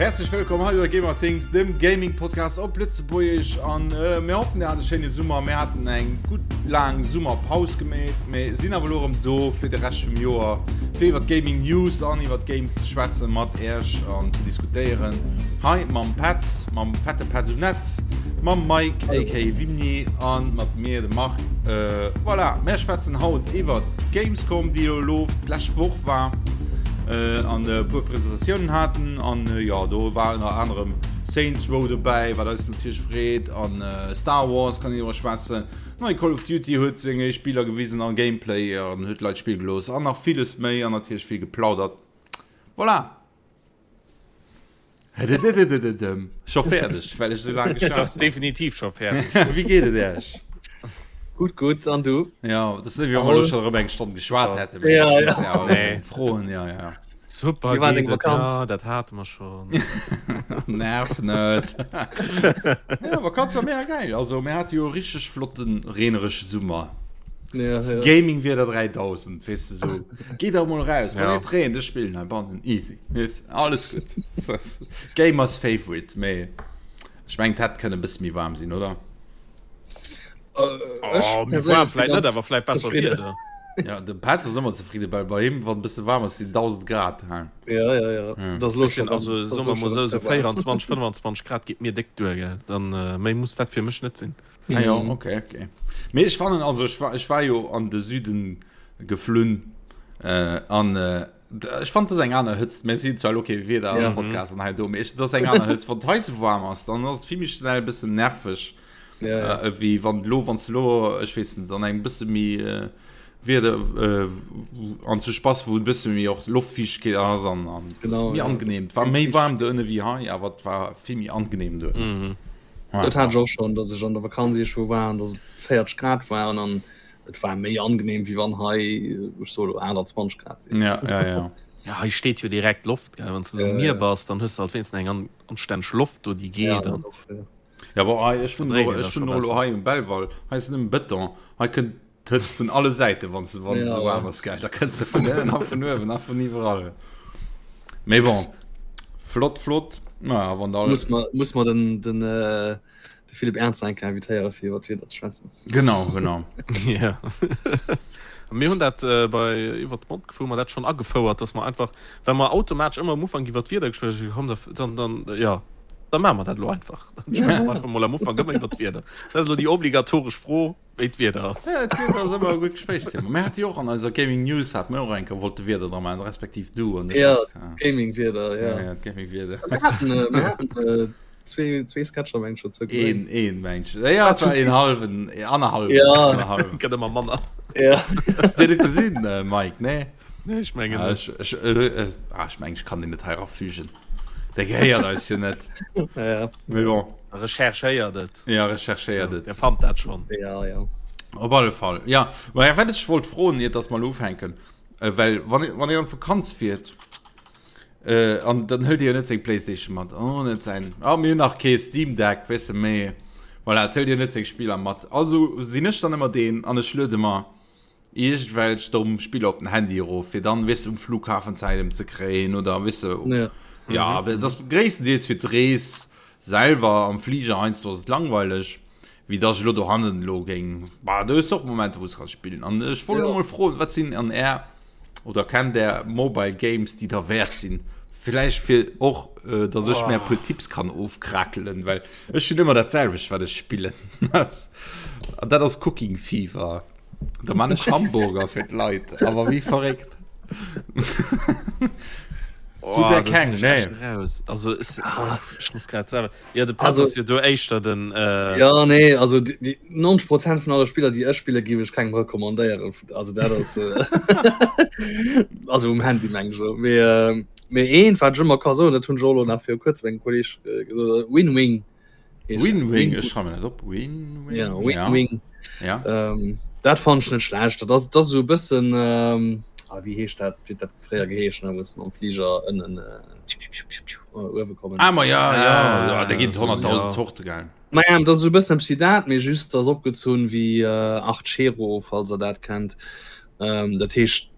Häerzlech wëllkomm hei bei Gamer Things, dem Gaming Podcast op Lëtzebuergesch an äh, mir hoffen dir hat e schéine Summer. Mir haten eng gutt laang Summerpaus gemeet, mee sinn awer elo erëm do fir de Rescht vum Joer fir iwwer Gaming News an iwwer Games ze schwätzen mat Äerch an ze diskutéieren. Hei mam Petz, mam fette Petz um Netz, mam Mike aka Vimni an mat mir de Marc. Äh, voilà, mir schwätzen haut iwwer Gamescom, déi elo d'lescht Woch war. Äh, an e puer Presentatiounen haten an äh, ja do war ënner anerem Saints Row dobäi, wat eis natierlech freet an äh, Star Wars kann een iwwer schwätzen. Nei Call of Duty huet seng éischt Spiller gewisen an Gameplay an huet Leit spille gelooss an nach villes méi an natierlech vill geplaudert. Voilà. Scho fäerdeg, well ech sou laang geschwat hunn. Definitiv scho fäerdeg. Wéi geet et Iech? Gutt, gutt, an du? Ja, dat ass net wéi wa mer elo scho erëm eng Stonn geschwat hätten. Ja, ja. Nee. Froen, ja, ja. Super Wéi war deng geet et, Vakanz? ja, dat hate mer schonn. Nerv net. Ja, Vakanz war mega geil. Also mir hate jo e richteg flotten, reeneresche Summer. Ja, ja. Gaming-Wieder 3000, weess de sou. Geet der mol raus, wann Ja. et reent, ech spillen heibannen, easy. Weess, alles gutt. Gamers favorite, mee ech mengen, et hätt kënne e bësse méi waarm sinn, oder? Äh, ech Oh, méi perséinlech waarm si vläit net, ganz awer vläit besser zefridden. Wieder. Ja, de Petz ass ëmmer zefridde, well bei him, wann e bësse waarm ass, sinn 1000 Grad. Hein. Ja, ja, ja. Ja. Dat ass elo Ech sinn scho also, dat ass soe elo mer mol scho sou, ze sou waarm. 24, 25 Grad geet mir déck duer, gell. Dann, äh, méi muss dat fir mech net sinn. Ah ja, Mhm. okay, okay. Mee ech fannen, also ech war, ech war jo an de Süden geflunn äh, an äh, ech fand das eng aner Hëtzt. Mir sinn zwar okay Wieder Ja. am Podcast an hei do, mee ech, das eng aner Hëtzt. Wann d'Hai sou waarm ass, dann ass et vill méi schnell e bëssen nerveg. Ja, ja. Äh, wéi wann lo, wann du lo, ech weess net, an engem bësse méi äh, Wieder äh, an zu Spaß, wou e bësse méi och Loftfiichtegkeet ass an, an Genau, méi ja, angenehm. das Et war méi méi waarm do ënne wéi hei, awer et war vill méi angenehm do ënnen. Mhm. Ja. Dat hat ech och schonn, datt ech an der Vakanz iergendwou war an datt et 40 Grad waren an et war méi angenehm wéi wann hei, ech soe lo 28 Grad sinn. Ja, ja, ja. Ja, hei steet jo direkt Loft, gell. Wann s de um Ja, Mier ja. bass, dann hues de halt wéinstens eng an anstänneg Loft do, déi Ja, geet dat an och, ja. Ja, aber hei, ech dann wunnen dréit och, een dat ech scho wunnen och elo besser. hei um Belval. Hei ass nëmmen Bëton. Hei kënnt d'Hëtzt vun alle Säiten, wann se, wann se Ja, sou waarm ja. ass, gell. Da kënnt se vun ënnen a vun uewen a vun iwwerall. Mee bon, flott, flott. Naja, wann da. Muss mer, muss mer den, den, äh, de Philippe Ernzer eng Kéier invitéiere fir iwwer d'Wieder ze schwätzen. Genau, genau. Ja. Mir hunn dat äh, bei iwwer d'Mond hu mer dat schonn agefouert, dass mer einfach, well mer automatesch ëmmer am Ufank iwwer d'Wieder geschwat hunn, komm, da, dann, dann, ja, da maache mer dat elo einfach. Dann schwätze mer einfach mol am Ufank ëmmer iwwer d'Wieder. Dat ass elo déi obligatoresch Fro, wéi d'Wieder ass. Ja, d'Wieder ass ëmmer e gutt Gespréichsthema. Mir hate jo och an eiser Gaming News hate mir och eng Kéier wollte Wieder dra maachen, respektiv du an ech. Ja, Ja, d'Gaming-Wieder, ja. ja, d'Gaming-Wieder. Mir haten, äh, mir haten äh, zwee, zwee Sketcher, meng ech, dozou Een, gesinn. een, meng ech. Ja, et war een halwen, annerhallwen, Ja. annerhallwen. Gëtt ëmmer manner. Ja. Hast du net gesinn, äh, Mike? Nee? Nee, ech mengen Ah, net. ech, ech, äh, äh, ah, ech meng, ech kann den net hei erafügen. Der gehéiert eis jo net. Ja, Mee bon. Recherchéiert et. Ja, recherchéiert et. Der fannt dat schon. ja, ja. Op alle Fall. Ja, ma ja, wat ech wollt froen, iert dass mer elo ufänken, äh, well wann, wann een an d'Vakanz fiert, äh, an dann hëlt Dir jo net seng Playstation mat, an och net säin, ah, mir hunn nach kee Steam Deck, weess de, mee voilà, et hëlt Dir net seng Spiller mat. Also sinn ech dann ëmmer deen an ech luede mer iergendwelch domm Spiller op den Handy erof, fir dann, weess de, um Flughafen Zäit emzekréien oder, weess de, Ja. ja, awer et ass gréisstendeels fir d'Rees selwer. Am Fliger heiansdo ass et langweileg, wéi dass ech elo dohannen elo géing, bah, do hues de och Momenter, wou s de kanns spillen. An ech wollt elo Ja. mol froen, wat sinn an Är, oder kennt Är Mobile Games, déi derwäert sinn? Villäicht fir och, dass ech mär e puer Tipps kann ofkrakelen, well ech hunn ëmmer dat selwecht, wat ech spillen. An dat ass Cooking Fever. Da man ech Hamburger fir d'Leit, awer wéi verréckt. Oh, der da keng, sinn ech echt nee. raus. Also es, ech muss grad selwer. Ja, de Petz Also- ass jo do éischter den. Äh, Ja, nee, also die, die 90 Prozent vun alle Spiller, déi ech spille, géif ech kengem recommandéieren. Also dat ass äh, also um Handy meng ech elo. Mee, äh, mee eent, wat ech ëmmer ka soen, dat hunn ech och elo nach viru kuerzem engem Kolleg äh, gesot, Win-Wing. Win-Wing, ech schreiwe mir dat op. Win-Wing. Ja, Win-Wing. Ja. Ähm, dat fand ech net schlecht. Dat ass, dat ass esou e bëssen, ähm, ah, wéi heescht dat, wéi dat fréier geheeschen huet, wou s mam Fliger ënnen äh, uewe kommen. Ah, ma ja, ja, Ah, ja, da ginn et 100.000 ja. Zorte, gell. Ma ja, dat ass esou e bëssen eppes wéi dat, mee just ass opgezunn wéi äh, Archero, falls der dat kennt. Ähm, dat heescht,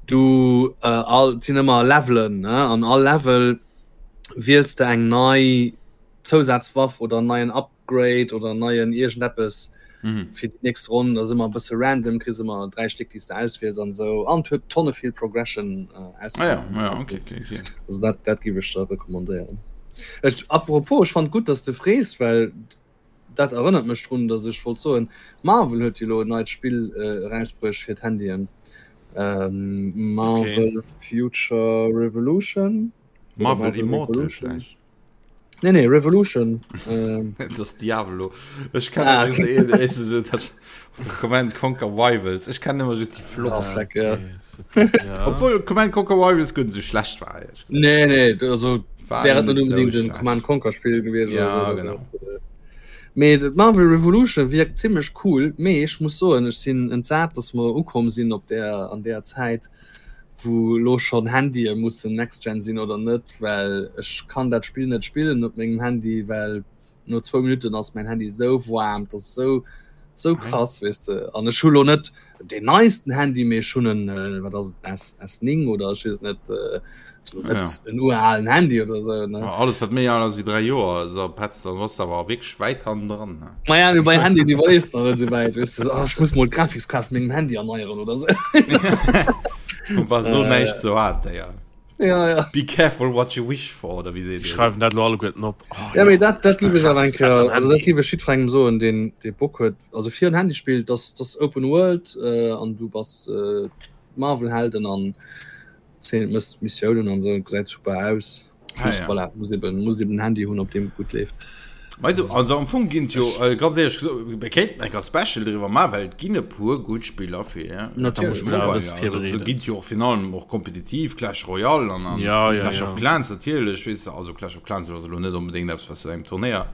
du äh, all, et sinn ëmmer Levelen, ne? An all Level. Wiels de eng nei Zousazwaff oder en neien Upgrade oder en neien iergendeppes mhm. fir déi nächst Ronn. Dat ass ëmmer e bësse random, kriss ëmmer 3 Stéck, déi s de auswiels an esou. An et huet tonne vill Progression äh, ah, ja, ja, okay, okay, okay. Also dat, dat géif ech der recommandéieren. Ech, apropos, ech fand gutt, dass de frees, well dat erënnert mech drun, dass ech wollt soen, Marvel huet jo lo en neit Spill äh, erausbruecht fir d'Handyen. Ähm, Marvel okay. Future Revolution. Marvel, Marvel Immortal vielleicht. Nee, nee, Revolution. Ähm. Das ist Diablo. Ich kann ah, okay. Command Conquer Rivals. Ich kann immer just die Flop. Ah, ja. ja. Obwohl Command Conquer Rivals gut so schlecht war. Nee, nee, also wäre net unbedingt ein Command Conquer Spiel gewesen. Ja, so, genau. Mee Marvel Revolution wirkt ziemlich cool. Mee ich muss so ich sinn entsat, dass wir ukomm sinn op der an der Zeit. wou lo schonn Handye mussen Next Gen sinn oder net, well ech kann dat Spill net spillen op mengem Handy, well no zwou Minutten ass mäin Handy sou waarm, dat ass sou sou krass, weess de. An ech hu lo net deen neisten Handy, mee ech hunn en, wat ass et, S S9 oder ech weess et net, also net en uralen Handy oder sou, ne. Alles wat méi al ass wéi 3 Joer, da petzt Dann bass de awer wierklech wäit hannendran. Ne? Ma ja, bei Handy déi wees nach net souwäit weess du, oh, ech muss mol d'Grafikskaart vun mengem Handy erneieren oder sou. War so äh, näischt ze hat, ja. Ja, ja. Be careful what you wish for oder wéi seet Déi schreiwen dat lo alleguerten op. Oh, ja, ja. Mee dat, dat giff ech awer eng Kéier, also dat giff ech jiddwerengem soen, deen dee Bock huet, also fir en Handy spillt, dass dass Open World äh, an du bass äh, Marvel-Helden an 10 mëss Missiounen an sou, gesäit super aus. Ah, ja. voilà, muss eben, muss eben Handy hunn op dem gut leeft. Du, also am Fong ginn jo äh, ganz ehrlich gesagt, wir kéinten eng Special driwwer ma well et ginn e puer gutt Spiller fir ginn jo och fin allem och kompetitiv Clash Royale an, an ja, ja, Clash ja. of Clans natierlech weess de, also Clash of Clans ass elo net unbedingt eppes was du engem Turnéier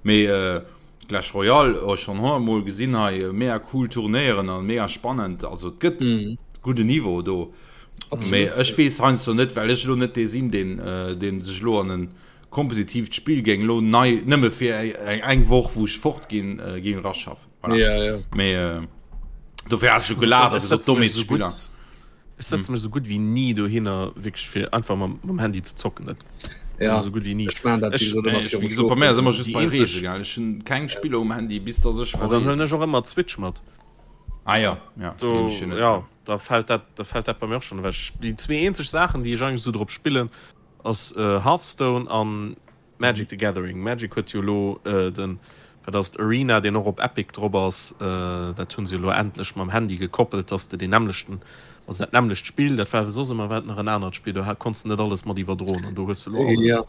mee äh, Clash Royale oh, schon hunnertmol gesinn hei mega cool Turnéieren an mega spannend also et gëtt mm. gudde Niveau do. Mee ech weess heiansdo net, well ech elo net dee sinn, deen, deen sech elo an en kompetitiivt Spill géing elo nei, nëmme fir eng, eng Woch, wou ech fort ginn, géing eraschaffen. Voilà. Ja, ja. Mee dofir hat ech jo gelaacht a gesot, domm ees Spiller. Ech setze mech esou gutt wéi ni dohinner, wierklech fir einfach mam, mam Handy ze zocken. Dat ja. esou gutt wéi ni. Ech maan dat, wéi gesot, ëmmer Ech, wéi gesot, bei mär ass ëmmer just bei Reese, gell. Ech hunn keng Spiller um Handy, bis dass ech Dann verreesen. huelen ech och ëmmer d'Switch mat. Ah ja, ja, Do, deen ech jo net. ja. Da fällt dat, da fällt dat bei mir och schon ewech. Déi zwee eenzeg Saachen, déi ech eigentlech esou drop spillen, ass Hearthstone an Magic the Gathering. Magic huet jo elo den, wat ass et, Arena, deen och op Epic drop ass. Dat hunn se jo elo endlech mam Handy gekoppelt, dass de deen nämmlechten, also dat nämmlecht Spill, dat war soss ëmmer war et nach en anert Spill, do konns de net alles mat iwwerdroen an do hues de elo alles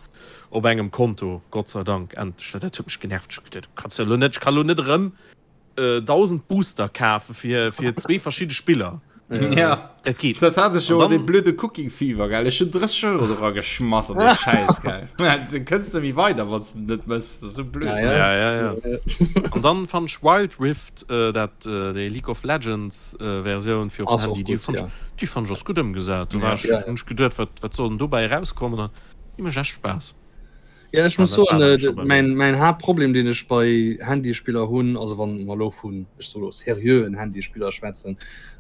op engem Konto, Gott sei Dank, endlech, well dat huet mech genervt. Ech hu geduet, du kanns jo elo net, ech ka elo net erëm 1000 Booster kafe fir fir zwee verschidde Spiller. Ja. Dat geet. Dat hat ech jo An dee dann- blöde Cooking Fever gell. Ech hunn 30 Euro dra geschmass an dee Schäiss gell. Du kënns net méi weider wann s de net mëss. Dat ass sou blöd. Ja, ja. Ja, ja, ja. An dann fand ech Wild Rift, äh, dat äh, déi League of Legends äh, Versioun fir op Ass dem och Handy, déi gutt, fand ja. ech, déi fand ech ass gutt ëmgesat. Do Ja. war ech, Ja, ja. hunn ech geduet, wat, wat soll denn dobäi erauskommen? An déi mécht echt Spaass. Ja, ech muss soen, äh, mein, mein Haaptproblem, den ech bei Handyspiller hunn, also wann mer lo vun ech so lo seriöen Handyspiller schwätzen,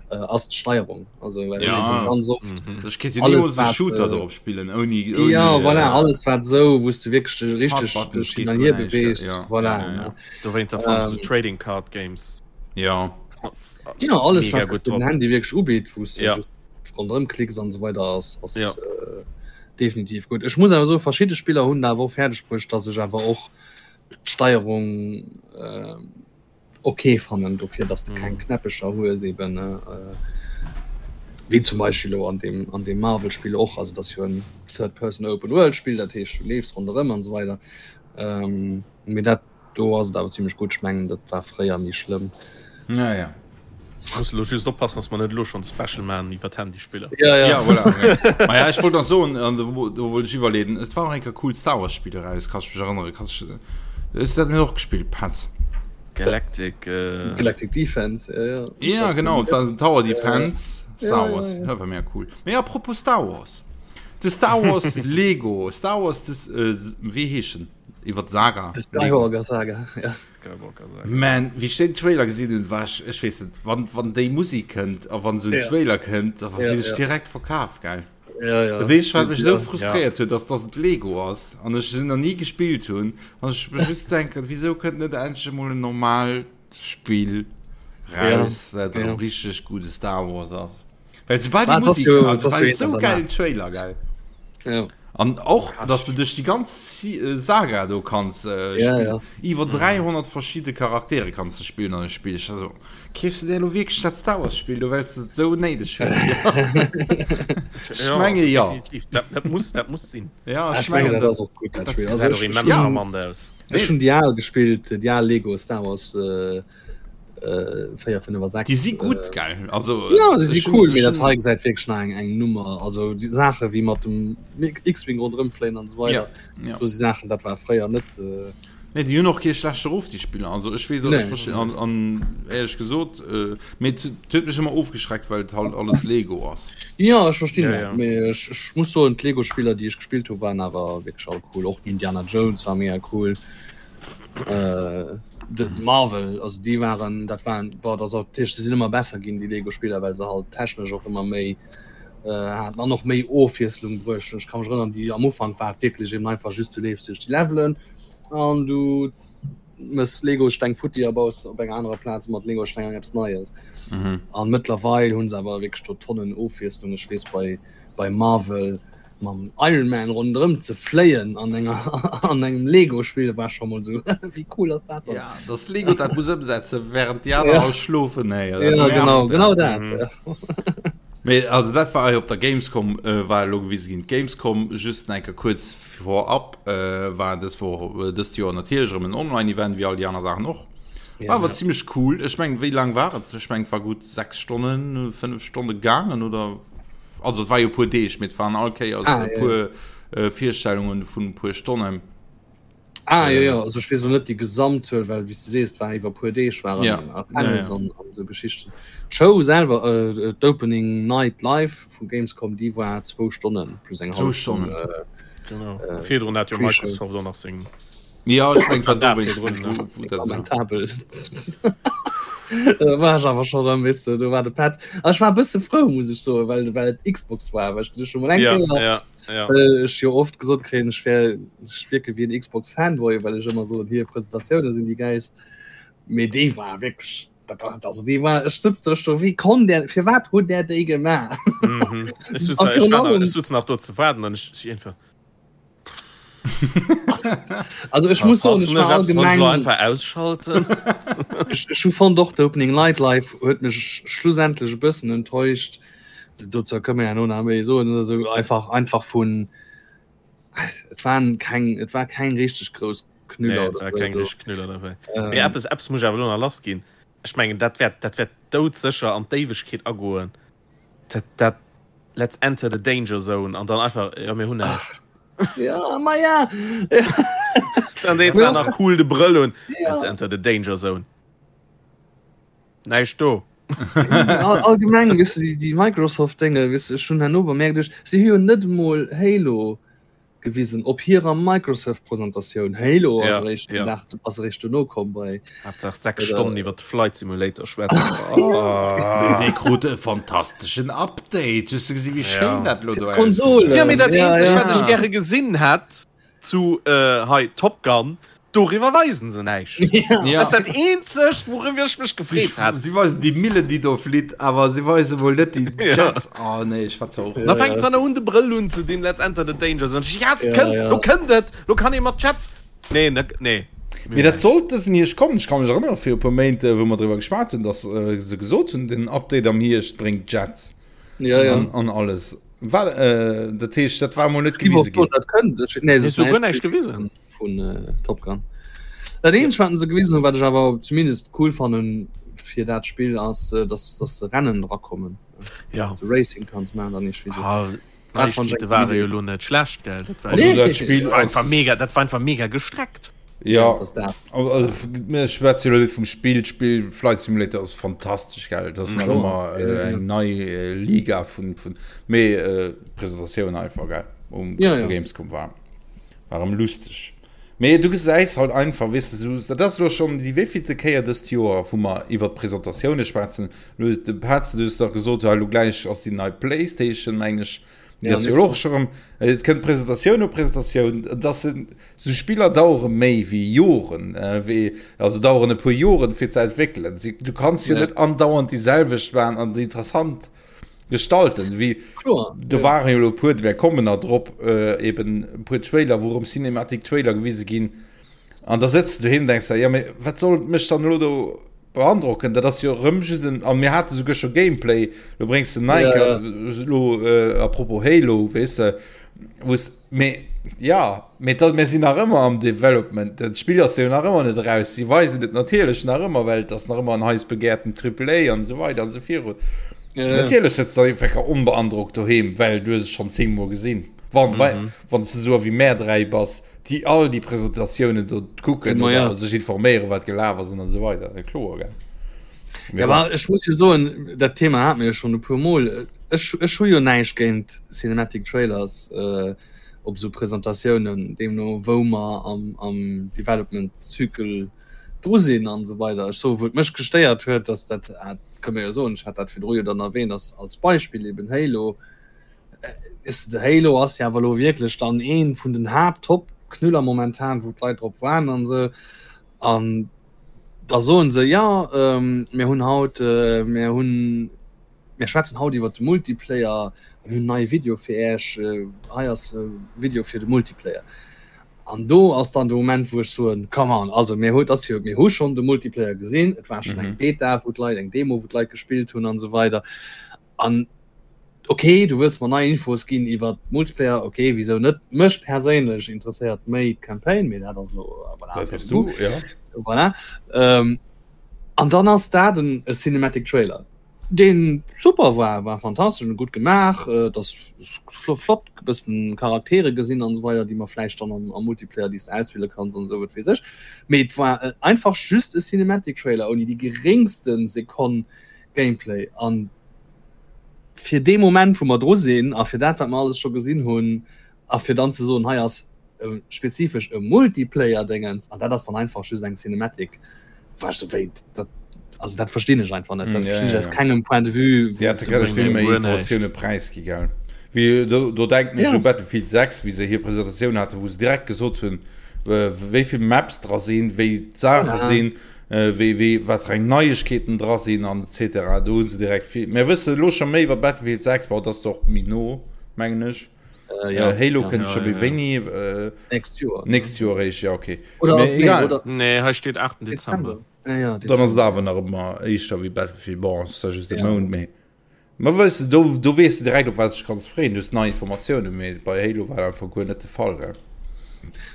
äh, ass d'Steierung. Also well ja. ech ganz oft mhm. Ech kéint jo niemals e Shooter äh, drop spillen ouni, ouni Ja, äh, voilà, alles wat sou, wous du wierklech dech richteg Hard-Buttons hin geet an guer hier näischt, beweegs. ja. Voilà, Ja, ja, ja. ne? Dowéinter fand ech Ähm, so Trading Card Games Ja. Ja, alles mega wat gutt den drop. Handy wierklech ubitt, wous du Ja. just ronderëm klicks an esou weider ass ass Ja. äh, Definitiv gutt. Ech muss awer soen, verschidde Spiller hunn et awer och fäerdeg bruecht, dass ech awer och d'Steierung ok fannen, dofir dass de keng Knäppecher hues eben, wéi zum Beispill elo an deem an deem Marvel-Spill och. Also et ass jo en Third-Person-Open-World-Spill, dat heescht du leefs ronderëm an esou weider. Mee dat Do ass et awer zimlech gutt. Ech mengen dat war fréier méi schlëmm. Ja, ja. Muss elo just oppassen, dass mer net elo schonn Special maachen iwwer d'Handyspiller. Ja, ja. Ja, voilà. Okay. Ma ja, ech wollt nach soen, an do, do wollt ech iwwerleeden, et war och eng Kéier cool Star Wars Spill eraus, kanns du mech erënneren? Kanns du, hues du dat net och gespillt, Petz? Galactic. Äh... Galactic Defense, ja, ja. Ja, genau, et war en Tower Defense Star Ja, Wars, ja, ja. dat war mega cool. Mee apropos Star Wars, de Star Wars Lego, Star Wars, des, äh, wéi heescht en? Iwwer d'Saga. De Skywalker Saga, ja. Skywalker Saga. Man, wéi ech den Trailer gesinn hunn, war ech, ech weess net, wann, wann déi Musik kënnt a wann esou en Ja. Trailer kënnt, da Ja, sinn ech ja. direkt verkaf, gell? Ja, ja. Weess wat mech esou frustréiert huet, ass dass et Lego ass an ech se nach ni gespillt hunn an ech mech just denken, wisou kënnt net endlech emol en normaalt Spill raus, dat erëm richteg gudde Star Wars ass. Well soubal déi Musik, also war esou gäilen Trailer, gell? Ja. An och, dass du duerch déi ganz Saga do kanns spillen. Iwwer 300 verschidde Charaktere kanns du spillen an dem Spill. Ech war esou, Keefs du dir elo wierklech dat Star Wars Spill do well s de et esou néideg hues? Ech menge jo. Definitiv, dat, dat muss, dat muss sinn. Ja, ech mengen dat ass och gutt dat Spill. Also ech, immens charmant aus. Ech hunn déi al gespillt, déi al Lego Star Wars 4, 5 a 6. Déi si gutt, gell? Also ja, déi si cool, mee dat hei gesäit wierklech nach eng eng Nummer. Also déi Saache wéi mat dem X-Wing ronderëm fléien an esou weider, do si Saachen, dat war fréier net. Nee, déi hunn och kee schlechte Ruff, déi Spiller. Also ech weess, ech verstinn, an, an éierlech gesot, äh, mee et huet mech ëmmer ofgeschreckt, well et halt alles Lego ass. Jo, ech verstinn Ja, dat, ja. mee ech, ech muss soen, d'Lego-Spiller, déi ech gespillt hu waren awer wierklech all cool. Och den Indiana Jones war mega cool. Äh, de Marvel, also déi waren, dat waren, boah, dat ass och, dat heescht, se sinn ëmmer besser ginn, déi Lego-Spiller, well se halt technesch och ëmmer méi äh, haten an och méi Ofwiesslung bruecht hunn. Ech ka mech erënnern, déi am Ufank war et wierklech eben einfach just, du leefs duerch déi Levelen, An du mëss Legosteng futti a baus op enger anerer Plaz mat Legosteng eng eppes Neies. Mhm. An mëttlerweil hunn se awer wierklech do Tonnen Ofwiesslung. Ech weess bei, bei Marvel mam Iron Man ronderëm ze fléien an enger an engem Lego-Spill war scho mol sou wéi cool ass dat dann? Ja, dass Lego dat muss ëmsetzen, während déi aner Ja. all schlofen, hey, dat Ja, nervt, genau, ja. genau dat. Mhm. Ja. Mee also dat war op der Gamescom äh, war elo gewise ginn. D'Gamescom just enke kuerz Vorab war dës Woch, dëst Joer natierlech erëm en Online-Event, wéi all déi aner Saachen och. War awer zimmlech cool. Ech mengen, wéi laang war et? Ech mengen, et war gutt 6 Stonnen, 5 Stonne gaangen, oder? Also et war jo e puer Deeg, mee et waren all Kéiers Ah, e ja, puer Virstellungen vun e puer Stonnen. Ah, jo, jo, also ech weess elo net déi Gesamtzuel, well wéi s de sees, et war iwwer e puer Deeg, waren Ja, a ja, Panels ja. an an esou Geschichten. D'Show selwer, d'Opening Night Live vu Gamescom, déi war zwou Stonnen plus eng Zwou hallef Stonn. Stonnen. Genau. Virdrun hat jo Pre-Show. Microsoft och nach seng. Ja, ech meng, wat War do wéinst virdrun, ne? wou dat war. Lamentabel. Da war ech awer scho rëm, weess de, do war de Petz. A ech war e bësse frou, muss ech soen, well well et Xbox war, well ech du scho mol eng Ja, Kéier ja, ja. well ech jo oft gesot kréien, ech wär, ech wierke wéi en Xbox Fanboy, well ech ëmmer soen, hir Presentatioune sinn déi gäilst. Mee déi war wierklech, dat, also déi war, ech sëtz do, ech do, wéi konnt där, firwat hutt där déi gemaach? Mhm. Ech sutz A nach, ech virun war nach, allem, ech sutz nach do ze waarden an ech, ech einfach. also ech muss soen, Verpassen ech war ech eppes, wann ech lo allgemeng, einfach ausschalten? ech, ech hu fonnt och d'Opening Night Live huet mech schlussendlech e bëssen enttäuscht. Dozou kënne mer herno nach méi soen oder sou, einfach, einfach vun, et waren keng, et war keng richteg grouss Nee, Knüller et oder war sou keng do. richteg Knüller dabei. Mee Ähm, eppes, eppes muss ech awer elo nach lass ginn. Ech mengen, dat wäert, dat wäert doudsécher an d'Éiwegkeet agoen. Dat, dat Let's enter the danger zone an dann einfach, jo, mir hunn näischt. Ja, ma ja. Dann deet se nach cool de Brëll un. Ja. Let's enter the danger zone. Näischt do. Allgemeng, weess de, déi Microsoft-Dénge, weess de, ech hunn herno bemerkt, ech, si hu jo net emol Halo gewisen op hirer Microsoft-Presentatioun. Halo ass Ja, eréischt den ja. Dag, ass eréischt dono komm bei. Haaptsaach 6 bei der- Stonnen iwwer de Flight Simulator schwätzen. Oh. Dee krut e fantasteschen Update. Hues de gesi wéi schéin Ja. dat lo do Konsole. ausgesäit? Ja, mee dat Ja, eenzegt, ja. wat ech gäre gesinn hätt zu äh, hei Top Gun, doriwwer weisen se näischt. Ja. Dat ass dat eenzegt, wouriwwer ech mech gefreet hätt. Si weisen déi Millen, déi do flitt, awer si weise wuel net déi Ja. Jets. Oh nee, ech war zwar och. Da fänkt se an un de Brëll unzedinn, Let's enter the danger zone. Ja, et Ja, kënnt, ja. lo kënnt et, lo kann ee mat Jets. Nee, ne, nee. Mee dat sollt dësen Hierscht kommen. Ech ka mech erënnere viru e puer Méint, wou mer driwwer geschwat hunn, datt se gesot hunn, den Update am Hierscht bréngt Jets Ja, ja. an, an alles. War, äh, dat heescht, dat war mol net Ich gewise wor ginn. dat kënnt. Ech, nee, Hues du guer näischt gewisen? Vun äh, Top Gun. Dat eenzegt, wat se gewisen hunn, wat ech awer zumindest cool fannen fir dat Spill ass, äh, dass, dass se Rennen drakommen. Ja. Dass du Racing kanns maachen dann nicht wéi so. Ah, Dat fand ich Neiegkeete eng ware cool jo lo net schlecht, gell? Dat war, Also Nee, dat Spill dat war einfach ass, mega, dat war einfach mega gestreckt. ja, dass dat. also, mir schwätze jo net vum Spill. D'Spill Flight Simulator ass fantastesch, gell? Dat ass nach Kloer. ëmmer äh, eng nei äh, Liga vun, vun mee äh, Presentatioun einfach, gell? Um Ja, op der ja. Gamescom war. War erëm lusteg. Mee du gesäis halt einfach, weess de, sou, dat ass elo schonn déi wéivillte Kéier dëst Joer, wou mer iwwert d'Presentatioune schwätzen. Elo, de Petz, du hues nach gesot, jo, elo gläich ass déi nei Playstation, meng ech. Déi ass jo och scho rëm, et kënnt Presentatioun no Presentatioun, et ass en, sou Spiller dauere méi wéi Joren, wéi, also daueren e puer Joren fir ze entwéckelen. Si, du kanns jo net andauernd déi selwecht maachen an déi interessant gestalten, wéi, do ware jo elo e puer, mir kommen nach drop, eben e puer Trailer, wou erëm Cinematic Trailer gewise ginn. An da sëtz de doheem an denks der, jo mee wat soll mech dann elo do beandrocken, dat ass jo erëm just en, an mir hate souguer scho Gameplay, lo bréngs de nei ja, lo äh, apropos Halo, weess de, wou's, mee ja, mee dat, mir sinn nach ëmmer am Development, dat Spill ass jo nach ëmmer net eraus, si weisen et natierlech nach ëmmer, well et ass nach ëmmer en heiß begehrten Triple A an esou weider an esou virun. Ja, ja. Natierlech sëtz de einfach onbeandrockt doheem, well du hues et schonn zéngmol gesinn, wann, mhm. wann s de esou wéi mär 3 bass. déi all déi Presentatiounen do kucken Ma ja. oder sech informéieren, wat gelaf ass an esou weider. Ja, kloer, gell? Ja, aber ech muss jo soen, dat Thema hat mir jo schon e puer Mol. Ech, ech hu jo näischt géint Cinematic Trailers äh, op esou Presentatiounen, deemno wou mer am, am Development Zykel dru sinn an esou weider. Ech soe wou et mech gestéiert huet, dass dat, ah, kënne mer jo soen, ech hat dat virdru jo dann erwähnt, ass als Beispill eben Halo, Ist de Halo ass ja awer lo wierklech dann een vun den Haapt-Top-Knüller momentan, wou d'Leit drop waarden an esou. An da soen se, ja ähm, mir hunn haut, äh, mir hunn, mir schwätzen haut iwwer de Multiplayer, mir hunn neie Video fir Äech, äh, hei ass e Video fir de Multiplayer. An do ass dann de Moment, wou ech soen, come on, also mir hu, ass jo, mir hu schonn de Multiplayer gesinn, et war schonn eng Beta, wou d'Leit, eng Demo, wou d'Leit gespillt hunn an esou weider. An ok, du wëlls mer nei Infos ginn iwwer Multiplayer, ok, wisou net? Mech perséinlech interesséiert méi d'Campaign, mee dat ass elo, voilà, Dat bass du, ja. Voilà. Ähm, an dann ass dat en e Cinematic Trailer, deen super war, war fantastesch an gutt gemaach, et ass flott e bëssen Charaktere gesinn an esou weider, déi mer vläicht dann am, am Multiplayer, déi s de auswiele kanns an esou, wat weess ech. Mee et war einfach just e Cinematic Trailer ouni déi geréngste Sekonn Gameplay an fir dee Moment wou mer dru sinn a fir dat wat mer alles scho gesinn hunn a fir dann ze soen, hei ass spezifesch e Multiplayer-Déngens an dat ass dann einfach just eng Cinematic, war ech sou wéi dat, also dat verstinn ech einfach net, dat verstinn ech aus kengem Point de vue. Si hätte kënne vill méi Informatioune präisgi gell. Wéi do, do denken ech u Battlefield 6, wéi se hir Presentatioun haten, wou se direkt gesot hunn, wéi vill Maps dra sinn, wéi d'Saache sinn. Wéi, wéi, wat fir eng Neiegkeeten dra sinn an etc. Do hu se direkt vill. Mir wësse elo scho méi iwwer Battlefield 6, bon, dat ass och méi no, mengen ech. Äh, ja, Halo ja. kënnt Ja, scho ja, méi ja. wéini? Äh, Nächst Joer. nächst Joer eréischt, ja, okay. Oder Mee ass, nee, egal. oder Nee, hei steet 8. Dezember. Dezember. Ja, ja, Dann ass et Dezember. awer nach ëmmer éischter wéi Battlefield. Bon, ass da just e Ja. Mount méi. Ma weess de, do, do weess de direkt, op wat s de dech kanns freeën. Du hues nei Informatiounen, mee bei Halo war dat einfach guer net de Fall, gell?